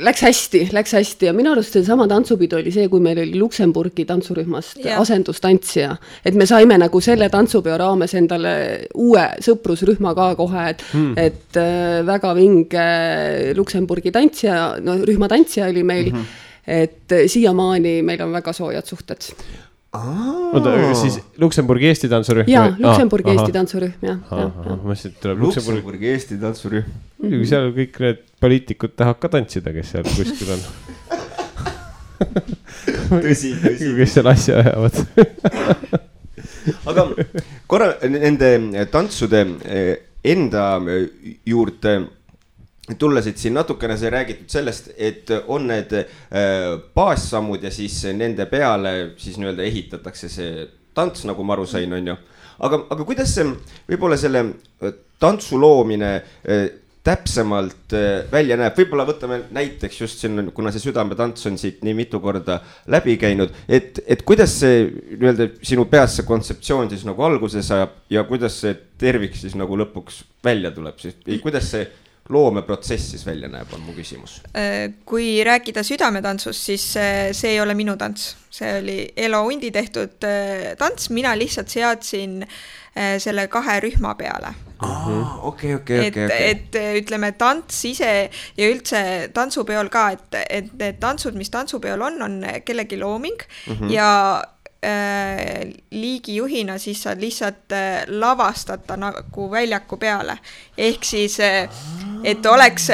läks hästi ja minu arust see sama tantsupidu oli see, kui meil oli Luksemburgi tantsurühmast asendustantsija, et me saime nagu selle tantsupeo raames endale uue sõprusrühma ka kohe, et väga vinge Luksemburgi tantsija, rühma tantsija oli meil, et siiamaani meil on väga soojad suhted. Oota, siis Luksemburgi Eesti tantsurühm? Jaa, Luksemburgi Eesti tantsurühm, Luksemburgi Eesti tantsurühm. Muidugi seal kõik need poliitikud tahavad ka tantsida, kes seal kuskil on. Tõsi. Kes seal asja ajavad. Aga korra nende tantsude enda juurde tullasid siin natukene see räägitud sellest, et on need baassammud ja siis nende peale siis nii-öelda ehitatakse see tants, nagu ma aru sain, on ju. Aga kuidas see võib-olla selle tantsu loomine täpsemalt välja näeb? Võib-olla võtame näiteks just siin, kuna see südametants on siit nii mitu korda läbi käinud, et kuidas see nii-öelda sinu peas see kontseptsioon siis nagu alguses ajab ja kuidas see tervik siis nagu lõpuks välja tuleb? Kuidas see loomeprotsess siis välja näeb, on mu küsimus. Kui rääkida südametantsust, siis see ei ole minu tants. See oli Elo Undi tehtud tants, mina lihtsalt seadsin selle 2 rühma peale. Okei. Et ütleme, tants ise ja üldse tantsupeol ka, et need tantsud, mis tantsupeol on kellegi looming ja liigijuhina siis saad lihtsalt lavastada nagu väljaku peale. Ehk siis, et oleks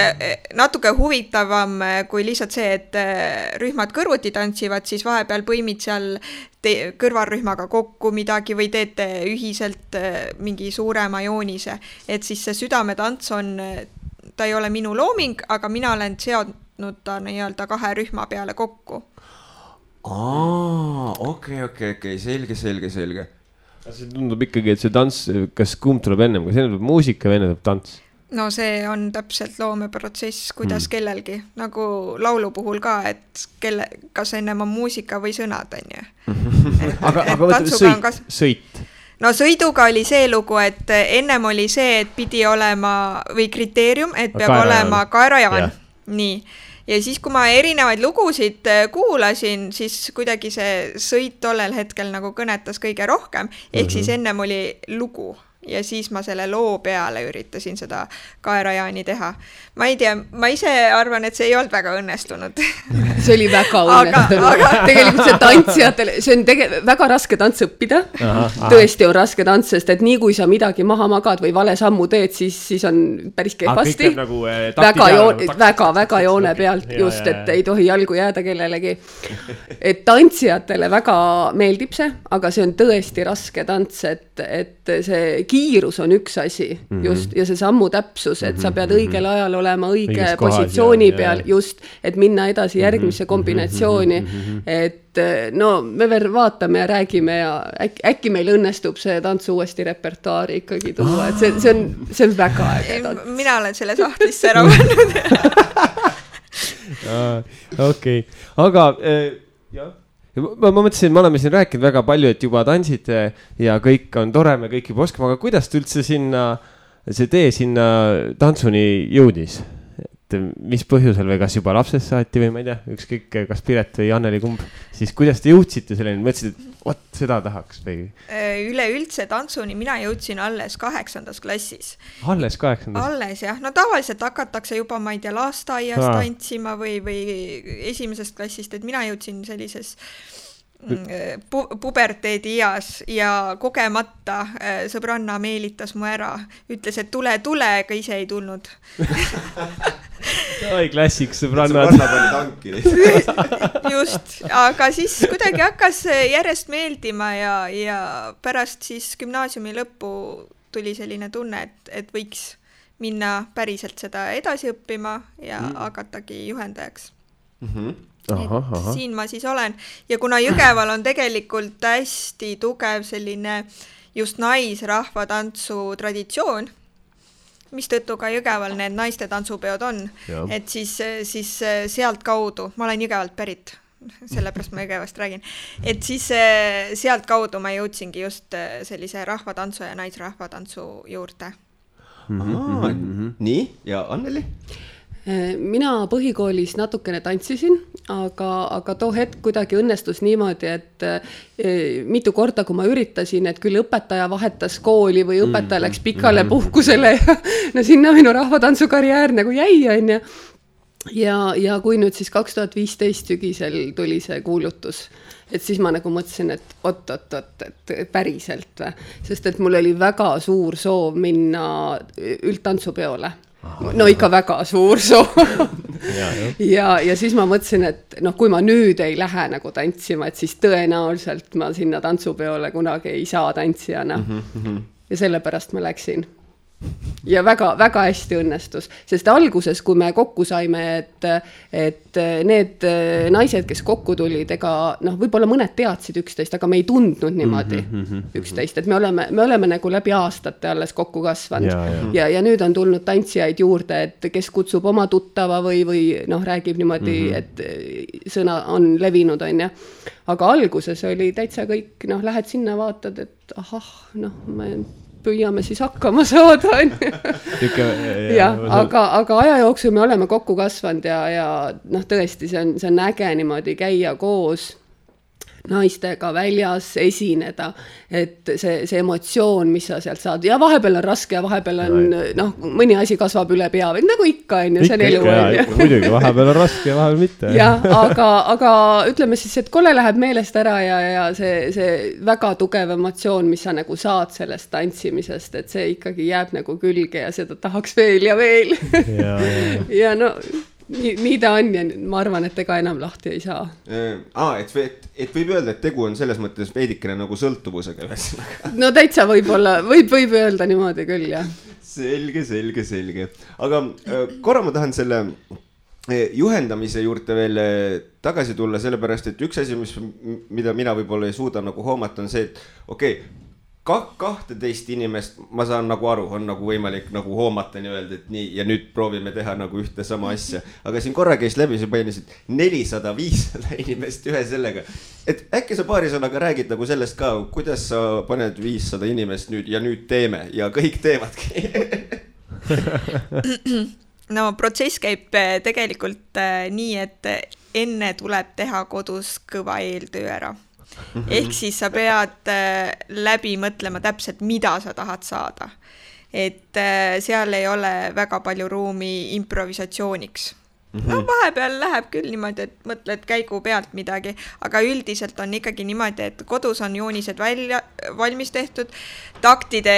natuke huvitavam kui lihtsalt see, et rühmad kõrvuti tantsivad, siis vahepeal põimid seal kõrvalrühmaga kokku midagi või teete ühiselt mingi suurema joonise. Et siis see südametants ta ei ole minu looming, aga mina olen seadnud ta nii-öelda 2 rühma peale kokku. Okei, selge. See tundub ikkagi, et see tants, kas kumb tuleb ennem, kas enne tuleb muusika või enne tuleb tants? No see on täpselt loomeprotsess, kuidas kellelgi, nagu laulu puhul ka, et kas ennem on muusika või sõnad, on ju. Aga võtame sõit. No sõiduga oli see lugu, et ennem oli see, et pidi olema või kriteerium, et peab olema kaerajaan. Nii. Ja siis, kui ma erinevaid lugusid kuulasin, siis kuidagi see sõit tollel hetkel nagu kõnetas kõige rohkem. Ehk siis ennem oli lugu ja siis ma selle loo peale üritasin seda kaerajaani teha. Ma ei tea, ma ise arvan, et see ei olnud väga õnnestunud. See oli väga õnnestunud. Tegelikult see tantsijatele, see on väga raske tants õppida. Tõesti on raske tants, sest et nii kui sa midagi maha magad või vale sammu teed, siis on päris kehvasti. Nagu väga joone pealt just, et ei tohi jalgu jääda kellelegi. Et tantsijatele väga meeldib see, aga see on tõesti raske tants, et see kiirus on üks asi just ja see sammu täpsus, et sa pead õigel ajal olema õige positsiooni peal just, et minna edasi järgmisse kombinatsiooni, et no me veel vaatame ja räägime ja äkki meil õnnestub see tants uuesti repertuaari ikkagi tuua, et see on väga äge tants. Mina olen selle sahtlisse ära pannud. Okei, aga jah. Ma mõtlesin, me oleme siin rääkinud väga palju, et juba tantsite ja kõik on tore, me kõik juba oskame, aga kuidas te üldse see tee sinna tantsuni jõudis? Et mis põhjusel või kas juba lapsest saati või ma ei tea, ükskõik kas Piret või Anneli kumb, siis kuidas te jõudsite selleni, mõtlesid, et seda tahaks või? Üleüldse tantsuni mina jõudsin alles 8. klassis. Alles 8. Alles jah, no tavaliselt hakatakse juba, ma ei tea, lasteaias tantsima või esimesest klassist, et mina jõudsin sellises puberteedi ias ja kogemata sõbranna meelitas mu ära, ütles, et tule, aga ise ei tulnud. Oi, klassik sõbrannad. Just, aga siis kuidagi hakkas järjest meeldima ja pärast siis gümnaasiumi lõppu tuli selline tunne, et võiks minna päriselt seda edasi õppima ja hakatagi juhendajaks. Siin ma siis olen ja kuna Jõgeval on tegelikult hästi tugev selline just naisrahvatantsu traditsioon, mis tõttu ka Jõgeval need naiste tantsupeod on, et siis sealt kaudu, ma olen Jõgevalt pärit, sellepärast ma Jõgevast räägin, et siis sealt kaudu ma jõudsingi just sellise rahvatantsu ja naisrahvatantsu juurde. Nii, ja Anneli? Mina põhikoolis natukene tantsisin, aga too hetk kuidagi õnnestus niimoodi, et mitu korda, kui ma üritasin, et küll õpetaja vahetas kooli või õpetaja läks pikale puhkusele ja no sinna minu rahvatantsukarjäär nagu jäi, on ju. Ja kui nüüd siis 2015 sügisel tuli see kuulutus, et siis ma nagu mõtlesin, et et päriselt, sest et mul oli väga suur soov minna üldtantsupeole. No ikka väga suur soov. ja siis ma mõtlesin, et kui ma nüüd ei lähe nagu tantsima, et siis tõenäoliselt ma sinna tantsupeole kunagi ei saa tantsijana. Ja sellepärast ma läksin. Ja väga hästi õnnestus, sest alguses, kui me kokku saime, et need naised, kes kokku tulid, ega võib-olla mõned teadsid üksteist, aga me ei tundnud niimoodi üksteist, et me oleme nagu läbi aastate alles kokku kasvanud ja nüüd on tulnud tantsijaid juurde, et kes kutsub oma tuttava või räägib niimoodi, et sõna on levinud, on ja. Aga alguses oli täitsa kõik, lähed sinna, vaatad, et ma püüame siis hakkama saada. Aga aja jooksul me oleme kokku kasvanud ja tõesti, see on äge niimoodi käia koos naistega väljas, esineda, et see emotsioon, mis sa sealt saad, ja vahepeal on raske ja vahepeal on, mõni asi kasvab üle pea, nagu ikka, on ju, see on elu. Muidugi, vahepeal on raske ja vahepeal mitte. Aga ütleme siis, et kolle läheb meelest ära ja see väga tugev emotsioon, mis sa nagu saad sellest tantsimisest, et see ikkagi jääb nagu külge ja seda tahaks veel ja veel. Ja nii ta on ja ma arvan, et ega enam lahti ei saa. Et võib öelda, et tegu on selles mõttes veidikene nagu sõltuvusega. No täitsa võib öelda niimoodi küll, jah. Selge. Aga korra ma tahan selle juhendamise juurde veel tagasi tulla, sellepärast, et üks asi, mida mina võib-olla ei suuda nagu hoomata, on see, et 12 inimest, ma saan nagu aru, on nagu võimalik nagu hoomata nii-öelda, et nii, ja nüüd proovime teha nagu ühte sama asja. Aga siin korra käis läbi, sa painisid 400-500 inimest ühe sellega. Et äkki sa paari sõnaga räägid nagu sellest ka, kuidas sa paned 500 inimest nüüd ja nüüd teeme ja kõik teevadki. No protsess käib tegelikult nii, et enne tuleb teha kodus kõva eeltöö ära. Ehk siis sa pead läbi mõtlema täpselt, mida sa tahad saada. Et seal ei ole väga palju ruumi improvisatsiooniks. No vahepeal läheb küll niimoodi, et mõtled käigu pealt midagi, aga üldiselt on ikkagi niimoodi, et kodus on joonised valmis tehtud, taktide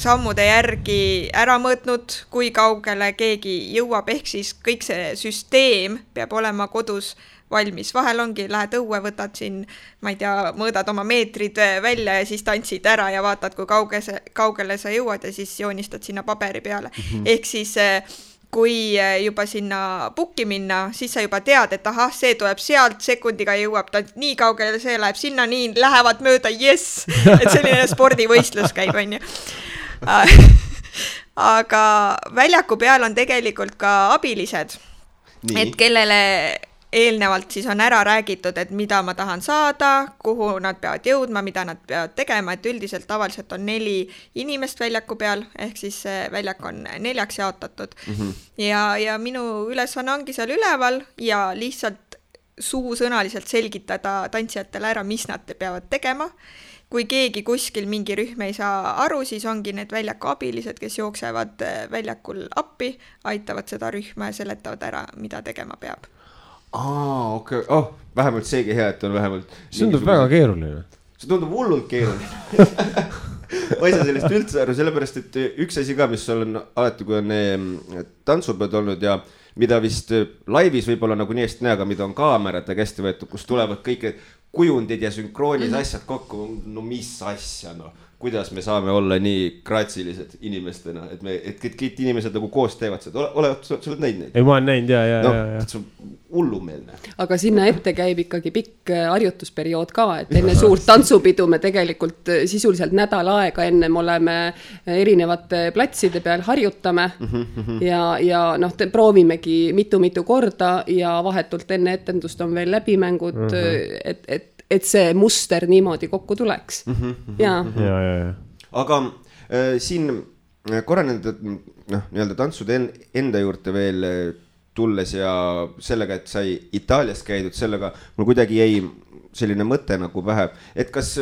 sammude järgi ära mõõtnud, kui kaugele keegi jõuab, ehk siis kõik see süsteem peab olema kodus valmis. Vahel ongi, lähed õue, võtad siin, ma ei tea, mõõdad oma meetrid välja ja siis tantsid ära ja vaatad, kui kaugele sa jõuad ja siis joonistad sinna paberi peale. Ehk siis kui juba sinna pukki minna, siis sa juba tead, et ahah, see tuleb sealt, sekundiga jõuab ta nii kaugele, see läheb sinna, nii lähevad mööda, yes! Et selline spordivõistlus käib, on ju. Aga väljaku peal on tegelikult ka abilised, et kellele eelnevalt siis on ära räägitud, et mida ma tahan saada, kuhu nad peavad jõudma, mida nad peavad tegema, et üldiselt tavaliselt on 4 inimest väljaku peal, ehk siis väljak on 4 jaotatud. Ja minu ülesanne ongi seal üleval ja lihtsalt suusõnaliselt selgitada tantsijatele ära, mis nad peavad tegema. Kui keegi kuskil mingi rühm ei saa aru, siis ongi need väljaku abilised, kes jooksevad väljakul appi, aitavad seda rühma ja seletavad ära, mida tegema peab. Okei. Vähemalt seegi hea, et on vähemalt... See tundub väga keeruline. See tundub hullult keeruline. Ma ei saa sellest üldse aru, sellepärast, et üks asi ka, mis on alati, kui on tantsupeod olnud ja mida vist laivis võib-olla nagu nii hästi näe, aga mida on kaamerate kästi võetud, kus tulevad kõik kujundid ja sünkroonis asjad kokku. No mis asja, no. Kuidas me saame olla nii graatsilised inimestena, et kõik inimesed nagu koos teevad seda. Sa oled näinud neid? Ei, ma olen näinud, ja. See on hullumeelne. Aga sinna ette käib ikkagi pikk harjutusperiood ka, et enne suurt tantsupidu me tegelikult sisuliselt nädal aega ennem oleme erinevate platside peal harjutame ja proovimegi mitu korda ja vahetult enne etendust on veel läbimängud, et see muster niimoodi kokku tuleks. Ja. Aga siin korra nii-öelda tantsude enda juurde veel tulles ja sellega, et sai Itaalias käidud, sellega mul kuidagi jäi selline mõte nagu pähe, et kas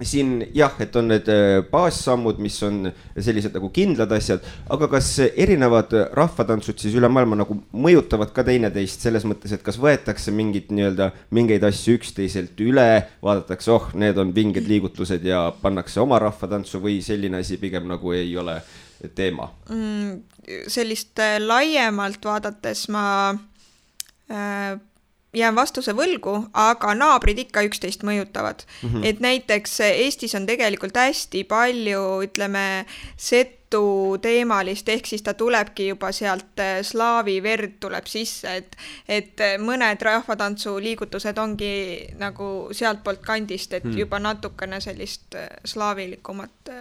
siin jah, et on need baassammud, mis on sellised nagu kindlad asjad, aga kas erinevad rahvatantsud siis üle maailma nagu mõjutavad ka teineteist selles mõttes, et kas võetakse mingeid asju üksteiselt üle, vaadatakse, need on vinged liigutused ja pannakse oma rahvatantsu või selline asi pigem nagu ei ole teema? Sellist laiemalt vaadates ma jään vastuse võlgu, aga naabrid ikka üksteist mõjutavad. Et näiteks Eestis on tegelikult hästi palju, ütleme, setu teemalist, ehk siis ta tulebki juba sealt slaavi verd tuleb sisse, et mõned rahvatantsu liigutused ongi nagu sealt poolt kandist, et juba natukene sellist slaavilikumat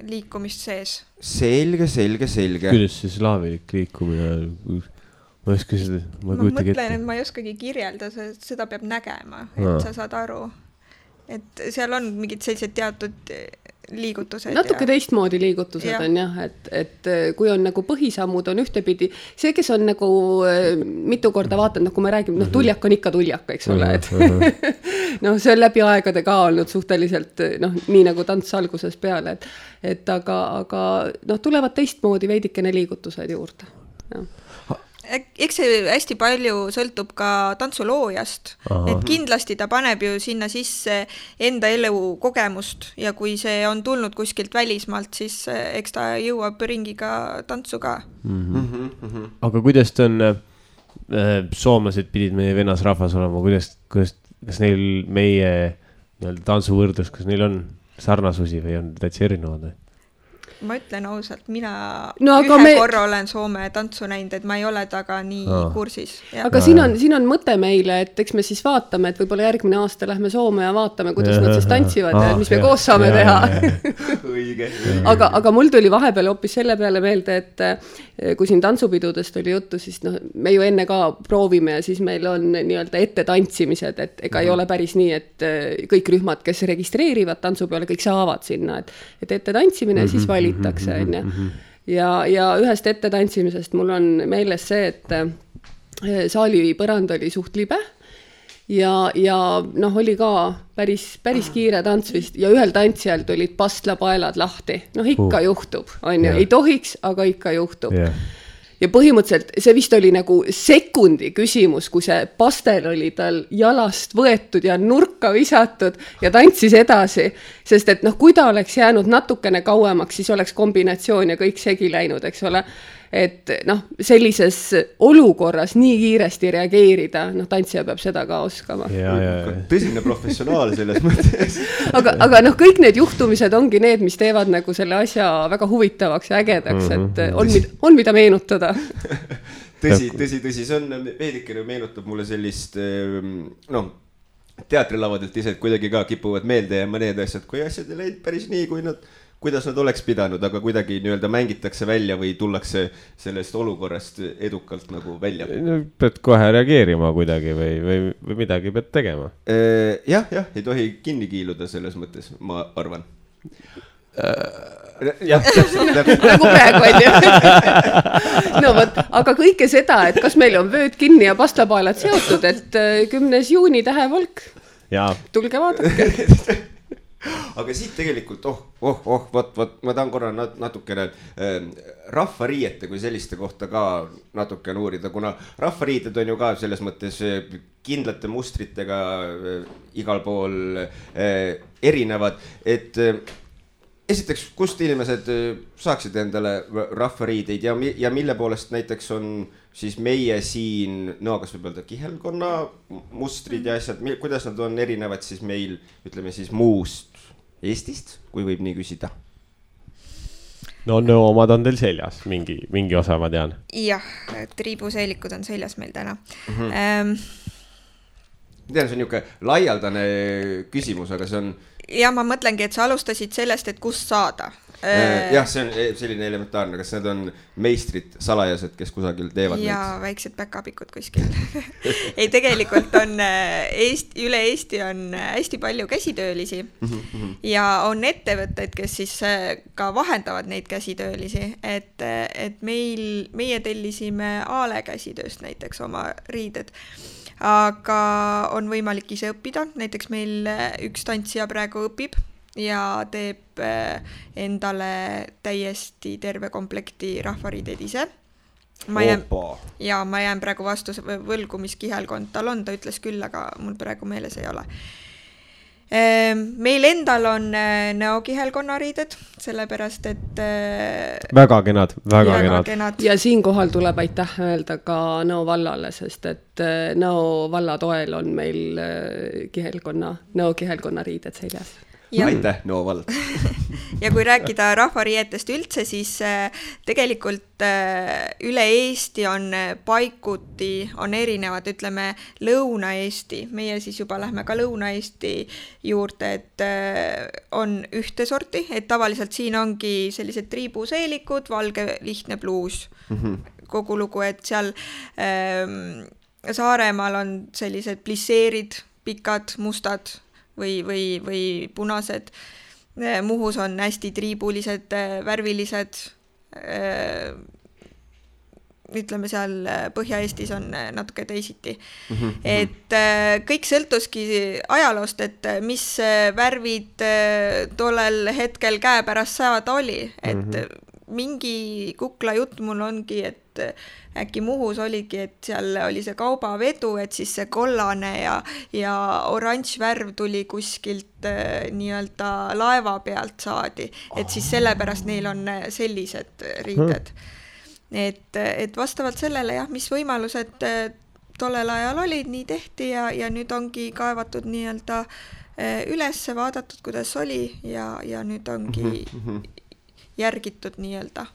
liikumist sees. Selge. Kuidas see slaavilik liikumine... Ma mõtlen, et ma ei oskagi kirjelda, seda peab nägema, et sa saad aru. Et seal on mingid sellised teatud liigutused. Natuke teistmoodi liigutused on jah, et kui on nagu põhisammud on ühtepidi, see, kes on nagu mitu korda vaatanud, kui me räägime, tuljak on ikka tuljak, eks ole, et see on läbi aegade ka olnud suhteliselt, nii nagu tants alguses peale, et aga tulevad teistmoodi veidikene liigutused juurde, jah. Eks see hästi palju sõltub ka tantsuloojast, et kindlasti ta paneb ju sinna sisse enda elu kogemust ja kui see on tulnud kuskilt välismaalt, siis eks ta jõuab ringiga tantsu ka. Aga kuidas ta on, soomlased pidid meie venasrahvas olema, kas neil meie tantsuvõrdlus, kas neil on sarnasusi või on täitsa erinevad? Ma ütlen ausalt, mina korra olen Soome tantsu näinud, et ma ei ole taga nii kursis. Ja. Aga siin on mõte meile, et eks me siis vaatame, et võib-olla järgmine aasta lähme Soome ja vaatame, kuidas nad siis tantsivad ja mis me koos saame teha. Õige. Aga mul tuli vahepeal hoopis selle peale meelde, et kui siin tantsupidudest oli juttu, siis me ju enne ka proovime ja siis meil on nii-öelda ette tantsimised, et ega ei ole päris nii, et kõik rühmad, kes registreerivad tantsu peale, kõik saavad sinna, et ette tantsimine ja siis valitakse. Ja ühest ette tantsimisest mul on meeles see, et saali põrand oli suht libe ja noh, oli ka päris kiire tants vist ja ühel tantsijal tulid pastlapaelad lahti. Noh, ikka juhtub, on ju, ei tohiks, aga ikka juhtub. Ja põhimõtteliselt see vist oli nagu sekundi küsimus, kui see pastel oli tal jalast võetud ja nurka visatud ja tantsis edasi, sest et noh, kui ta oleks jäänud natukene kauemaks, siis oleks kombinatsioon ja kõik segi läinud, eks ole. Et noh, sellises olukorras nii kiiresti reageerida, noh, tantsija peab seda ka oskama. Tõsine professionaal selles mõttes. aga noh, kõik need juhtumised ongi need, mis teevad nagu selle asja väga huvitavaks ja ägedaks, et on mida meenutada. Tõsi, see on veidikene meenutab mulle sellist, noh, teatrilavadelt ise, et kuidagi ka kipuvad meelde ja mõned asjad, kui asjad ei läinud päris nii, kuidas nad oleks pidanud, aga kuidagi nii-öelda mängitakse välja või tullakse sellest olukorrast edukalt nagu välja. Pead kohe reageerima kuidagi või midagi pead tegema. Jah, ei tohi kinni kiiluda selles mõttes, ma arvan. Nagu praegu on ju. No võt, aga kõike seda, et kas meil on vööd kinni ja pastapaelad seotud, et 10. juuni tähevalk. Tulge vaadake. Aga siit tegelikult, ma tahan korra natukene rahvariiete kui selliste kohta ka natukene uurida, kuna rahvariited on ju ka selles mõttes kindlate mustritega igal pool erinevad, et esiteks, kust inimesed saaksid endale rahvariideid ja mille poolest näiteks on siis meie siin, no kas võib öelda kihelkonna mustrid ja asjad, kuidas nad on erinevad siis meil, ütleme siis muust Eestist, kui võib nii küsida? No omad on teil seljas, mingi osa ma tean. Jah, triibuseelikud on seljas meil täna. Tean, see on niisugune laialdane küsimus, aga see on... Ja ma mõtlengi, et sa alustasid sellest, et kust saada. Jah, see on selline elementaarne, kas need on meistrid, salajased, kes kusagil teevad ja neid? Väiksed päkapikud kuskil. Ei, tegelikult on üle Eesti on hästi palju käsitöölisi ja on ettevõtted, kes siis ka vahendavad neid käsitöölisi, et meie tellisime Aale käsitööst näiteks oma riided. Aga on võimalik ise õppida, näiteks meil üks tantsija praegu õpib ja teeb endale täiesti terve komplekti rahvariideid ise. Ma jään praegu vastu võlgu, mis kihelkond tal on, ta ütles küll, aga mul praegu meeles ei ole. Meil endal on näokihelkonnariided, sellepärast, et... Väga kenad. Ja siinkohal tuleb aitäh öelda ka Nõo vallale, sest et Nõo valla toel on meil näokihelkonnariided seljas. Aitäh, Nõo vald. Ja kui rääkida rahvariietest üldse, siis tegelikult üle Eesti on paikuti, on erinevad, ütleme Lõuna-Eesti, meie siis juba lähme ka Lõuna-Eesti juurde, et on ühte sorti, et tavaliselt siin ongi sellised triibuseelikud, valge lihtne pluus, kogu lugu, et seal Saaremaal on sellised plisseerid, pikad, mustad, või punased. Muhus on hästi triibulised, värvilised. Ütleme seal Põhja-Eestis on natuke teisiti. Et kõik sõltuski ajaloost, et mis värvid tollel hetkel käepärast saada oli. Et mingi kukla jutt mul ongi, et äkki Muhus oligi, et seal oli see kaubavedu, et siis see kollane ja oranž värv tuli kuskilt nii-öelda laeva pealt saadi, et siis sellepärast neil on sellised riided. Et vastavalt sellele, jah, mis võimalused tollel ajal olid, nii tehti ja nüüd ongi kaevatud nii-öelda ülesse, vaadatud, kuidas oli ja nüüd ongi järgitud nii-öelda.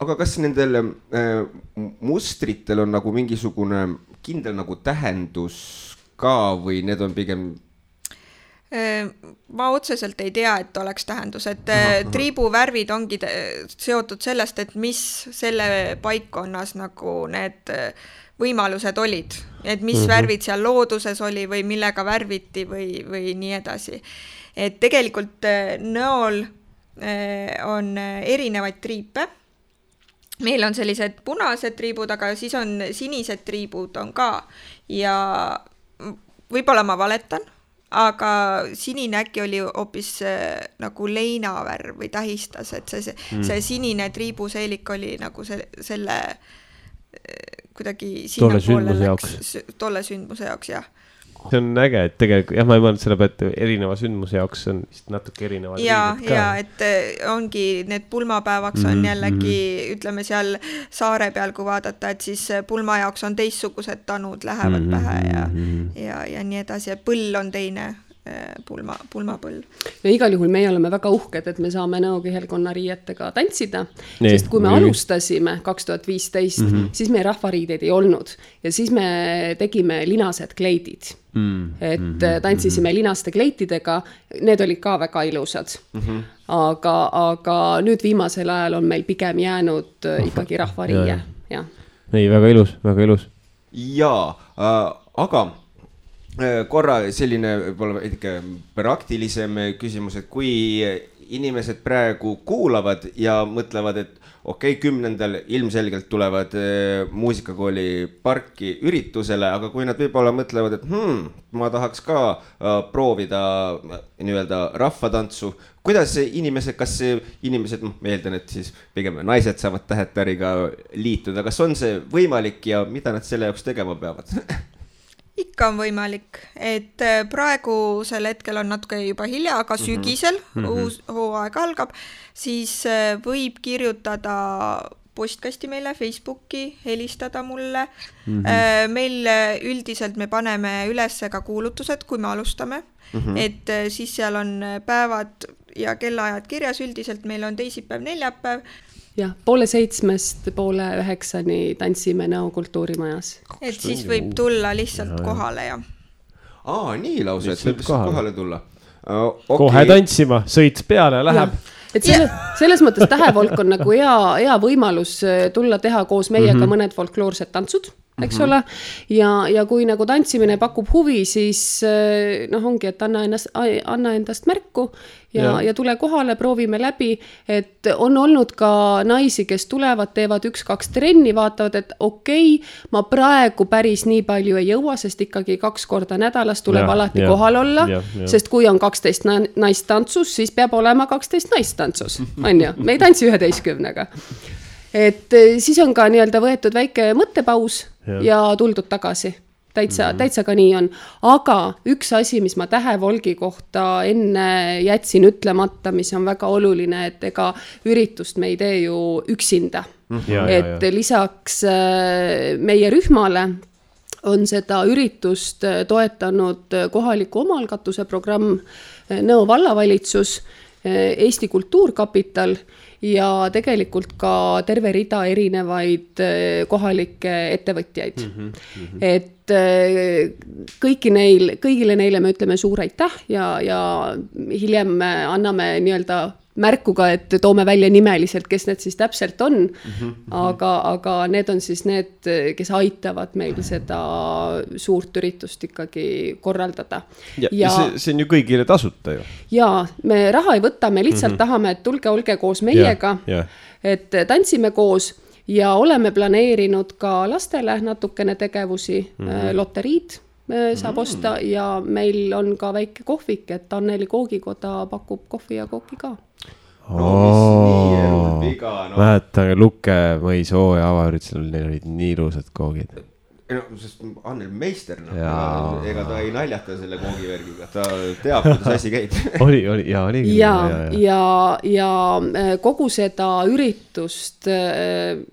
Aga kas nendel mustritel on nagu mingisugune kindel nagu tähendus ka või need on pigem... Ma otseselt ei tea, et oleks tähendus, et triibuvärvid ongi seotud sellest, et mis selle paikkonnas nagu need võimalused olid, et mis värvid seal looduses oli või millega värviti või nii edasi. Et tegelikult Nõol on erinevaid triipe. Meil on sellised punased triibud, aga siis on sinised triibud on ka ja võib-olla ma valetan, aga sinine äkki oli hoopis nagu leinavärv või tähistas, et see sinine triibuseelik oli nagu selle kuidagi sinna poole läks tolle sündmuse jaoks, jah. See on äge, et tegelikult, jah, ma ei mõelnud selle pealt erineva sündmuse jaoks on vist natuke erinevad riigid ka. Ja, et ongi need pulmapäevaks on jällegi, ütleme seal saare peal, kui vaadata, et siis pulma jaoks on teistsugused tanud lähevad pähe ja nii edasi, ja põll on teine pulmapõll. Ja igal juhul meie oleme väga uhked, et me saame Nõo kihelkonna riietega tantsida, sest kui me alustasime 2015, siis meie rahvariideid ei olnud ja siis me tegime linased kleidid. Et tantsisime linaste kleitidega, need olid ka väga ilusad. Aga nüüd viimasel ajal on meil pigem jäänud ikkagi rahvariie. Ei, väga ilus, väga ilus. Jaa, aga korra selline võib-olla ikka praktilisem küsimus, et kui inimesed praegu kuulavad ja mõtlevad, et okei, 10. ilmselgelt tulevad muusikakooli parki üritusele, aga kui nad võib-olla mõtlevad, et ma tahaks ka proovida nii-öelda rahvatantsu, kuidas inimesed, kas inimesed, ma eeldan, et siis pigem naised saavad tähetariga liituda, kas on see võimalik ja mida nad selle jaoks tegema peavad? Ikka on võimalik, et praegusel hetkel on natuke juba hilja, aga sügisel uus hooaeg algab, siis võib kirjutada postkasti meile Facebooki, helistada mulle. Meil üldiselt me paneme üles ka kuulutused, kui me alustame, et siis seal on päevad ja kellaajad kirjas, üldiselt meil on teisipäev, neljapäev. Jah, 6:30 9:00 tantsime Nõo kultuurimajas. Et siis võib tulla lihtsalt kohale ja. Nii lausa, et võib kohale tulla. Kohe tantsima, sõits peale ja läheb. Et selles mõttes Tähevolk on nagu hea võimalus tulla teha koos meiega mõned folkloorsed tantsud, eks ole. Ja kui nagu tantsimine pakub huvi, siis ongi, et anna endast märku ja tule kohale, proovime läbi, et on olnud ka naisi, kes tulevad, teevad 1-2 trenni, vaatavad, et okei, ma praegu päris nii palju ei jõua, sest ikkagi 2 korda nädalas tuleb alati kohal olla, sest kui on 12 naist tantsus, siis peab olema 12 naist tantsus, on ju, me ei tantsi 11-ga. Et siis on ka nii-öelda võetud väike mõttepaus ja tuldud tagasi. Täitsa ka nii on. Aga üks asi, mis ma Tähevolgi kohta enne jätsin ütlemata, mis on väga oluline, et ega üritust me ei tee ju üksinda. Et lisaks meie rühmale on seda üritust toetanud kohaliku omaalgatuse programm Nõo vallavalitsus, Eesti Kultuurkapital ja tegelikult ka terve rida erinevaid kohalikke ettevõtjaid. Et kõigile neile me ütleme suur aitäh ja hiljem anname nii-öelda märkuga, et toome välja nimeliselt, kes need siis täpselt on, aga need on siis need, kes aitavad meil seda suurt üritust ikkagi korraldada. Ja see on ju kõigile tasuta ju. Ja me raha ei võta, me lihtsalt tahame, et tulge, olge koos meiega, et tantsime koos ja oleme planeerinud ka lastele natukene tegevusi, loteriid saab osta ja meil on ka väike kohvik, et Anneli koogikoda pakub kohvi ja kooki ka. Mäletan Lukke mõis hooaja avaüritusel, neil olid nii ilusad koogid. Sest Annel meister, ega ta ei naljata selle koogivärgiga, ta teab, kuidas asi käib. Oli. Ja kogu seda üritust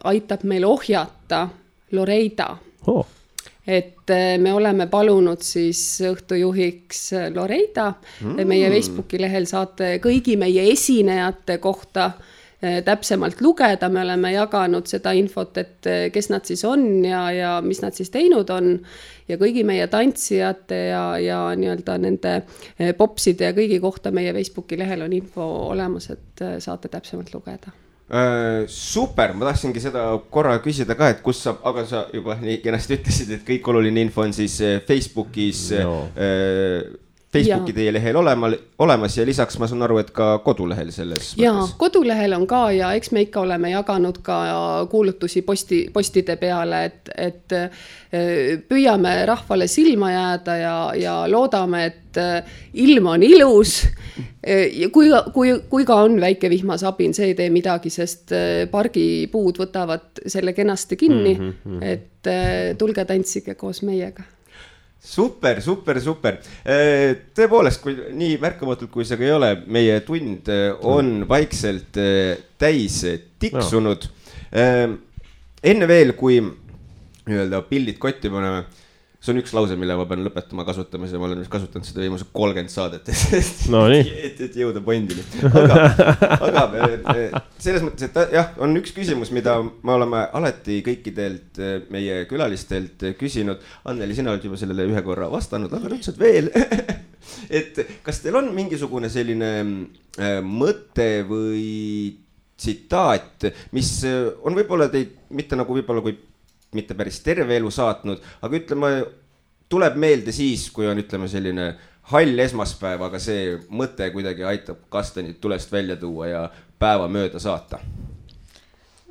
aitab meil ohjata Loreida. Et me oleme palunud siis õhtujuhiks Loreida. Meie Facebooki lehel saate kõigi meie esinejate kohta täpsemalt lugeda. Me oleme jaganud seda infot, et kes nad siis on ja mis nad siis teinud on. Ja kõigi meie tantsijate ja nii-öelda nende popside ja kõigi kohta meie Facebooki lehel on info olemas, et saate täpsemalt lugeda. Super, ma tahtsingi seda korra küsida ka, et kus saab, aga sa juba nii kenasti ütlesid, et kõik oluline info on siis Facebookis Facebooki teie lehel olemas ja lisaks ma saan aru, et ka kodulehel selles mõttes. Jaa, kodulehel on ka ja eks me ikka oleme jaganud ka kuulutusi postide peale, et püüame rahvale silma jääda ja loodame, et ilm on ilus. Kui ka on väike vihmasabin, see ei tee midagi, sest pargipuud võtavad selle kenasti kinni, et tulge tantsige koos meiega. Super. Tõepoolest, kui nii märkamatult kui see ka ei ole, meie tund on vaikselt täis tiksunud. Enne veel, kui pildid kotti paneme, see on üks lause, mille ma pean lõpetama kasutamise, ma olen kasutanud seda viimase 30 saadet, et jõuda pointini. Aga selles mõttes, et jah, on üks küsimus, mida me oleme alati kõikidelt meie külalistelt küsinud. Anneli, sina oled juba sellele ühe korra vastanud, aga nüüd saad veel. Et kas teil on mingisugune selline mõte või tsitaat, mis on võib-olla teid mitte nagu võib-olla kui mitte päris terve elu saatnud, aga ütleme, tuleb meelde siis, kui on ütleme selline hall esmaspäev, aga see mõte kuidagi aitab kastanid tulest välja tuua ja päeva mööda saata.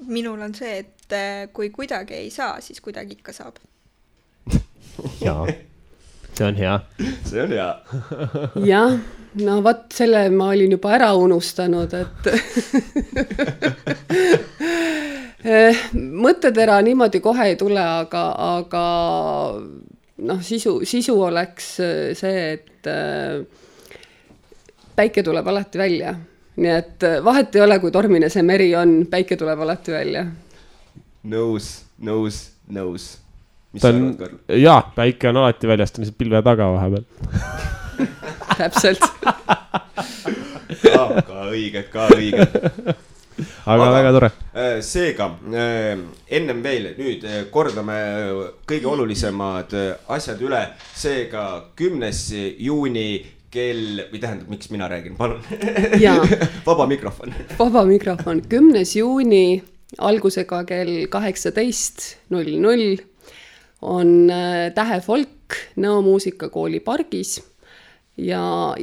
Minul on see, et kui kuidagi ei saa, siis kuidagi ikka saab. Jaa, see on hea. See on hea. Jah, no vaat selle ma olin juba ära unustanud, et mõttetera niimoodi kohe ei tule, aga noh, sisu oleks see, et päike tuleb alati välja. Nii et vahet ei ole, kui tormine see meri on, päike tuleb alati välja. Nõus. Mis on, jaa, päike on alati väljas, ta on pilve taga vahepeal. Täpselt. Ka õige. Aga väga tore. Seega, ennem veel, nüüd kordame kõige olulisemad asjad üle. Seega 10. juuni kell, või tähendab, miks mina räägin, palun. Vaba mikrofon. 10. juuni algusega kell 18:00 on Tähe Folk Nõo muusikakooli pargis ja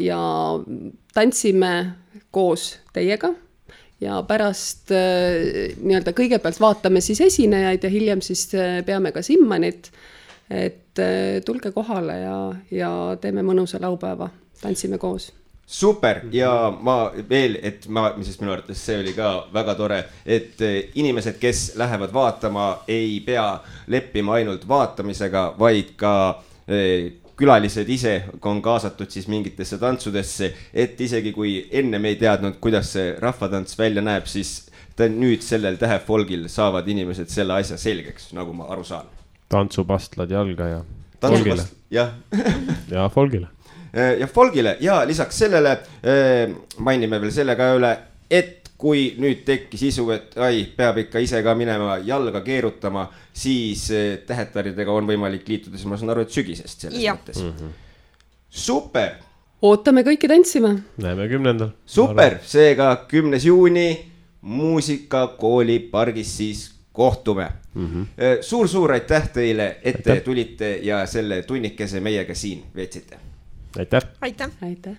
tantsime koos teiega. Ja pärast nii-öelda kõigepealt vaatame siis esinejaid ja hiljem siis peame ka simmanit, et tulge kohale ja teeme mõnusa laupäeva, tantsime koos. Super ja ma veel, sest minu arvates see oli ka väga tore, et inimesed, kes lähevad vaatama, ei pea leppima ainult vaatamisega, vaid ka külalised ise on kaasatud siis mingitesse tantsudesse, et isegi kui enne me ei teadnud, kuidas see rahvatants välja näeb, siis nüüd sellel Tähe Folgil saavad inimesed selle asja selgeks, nagu ma aru saan. Tantsupastlad jalga ja Folgile. Ja Folgile. Ja Folgile ja lisaks sellele mainime veel selle ka üle, et kui nüüd tekkis isu, et peab ikka ise ka minema jalga keerutama, siis tähetaridega on võimalik liituda, siis ma saan aru, et sügisest selles mõttes. Super! Ootame kõiki tantsima. Näeme 10. Super! Seega 10. juuni muusikakooli pargis siis kohtume. Suur aitäh teile, et te tulite ja selle tunnikese meiega siin veetsite. Aitäh! Aitäh!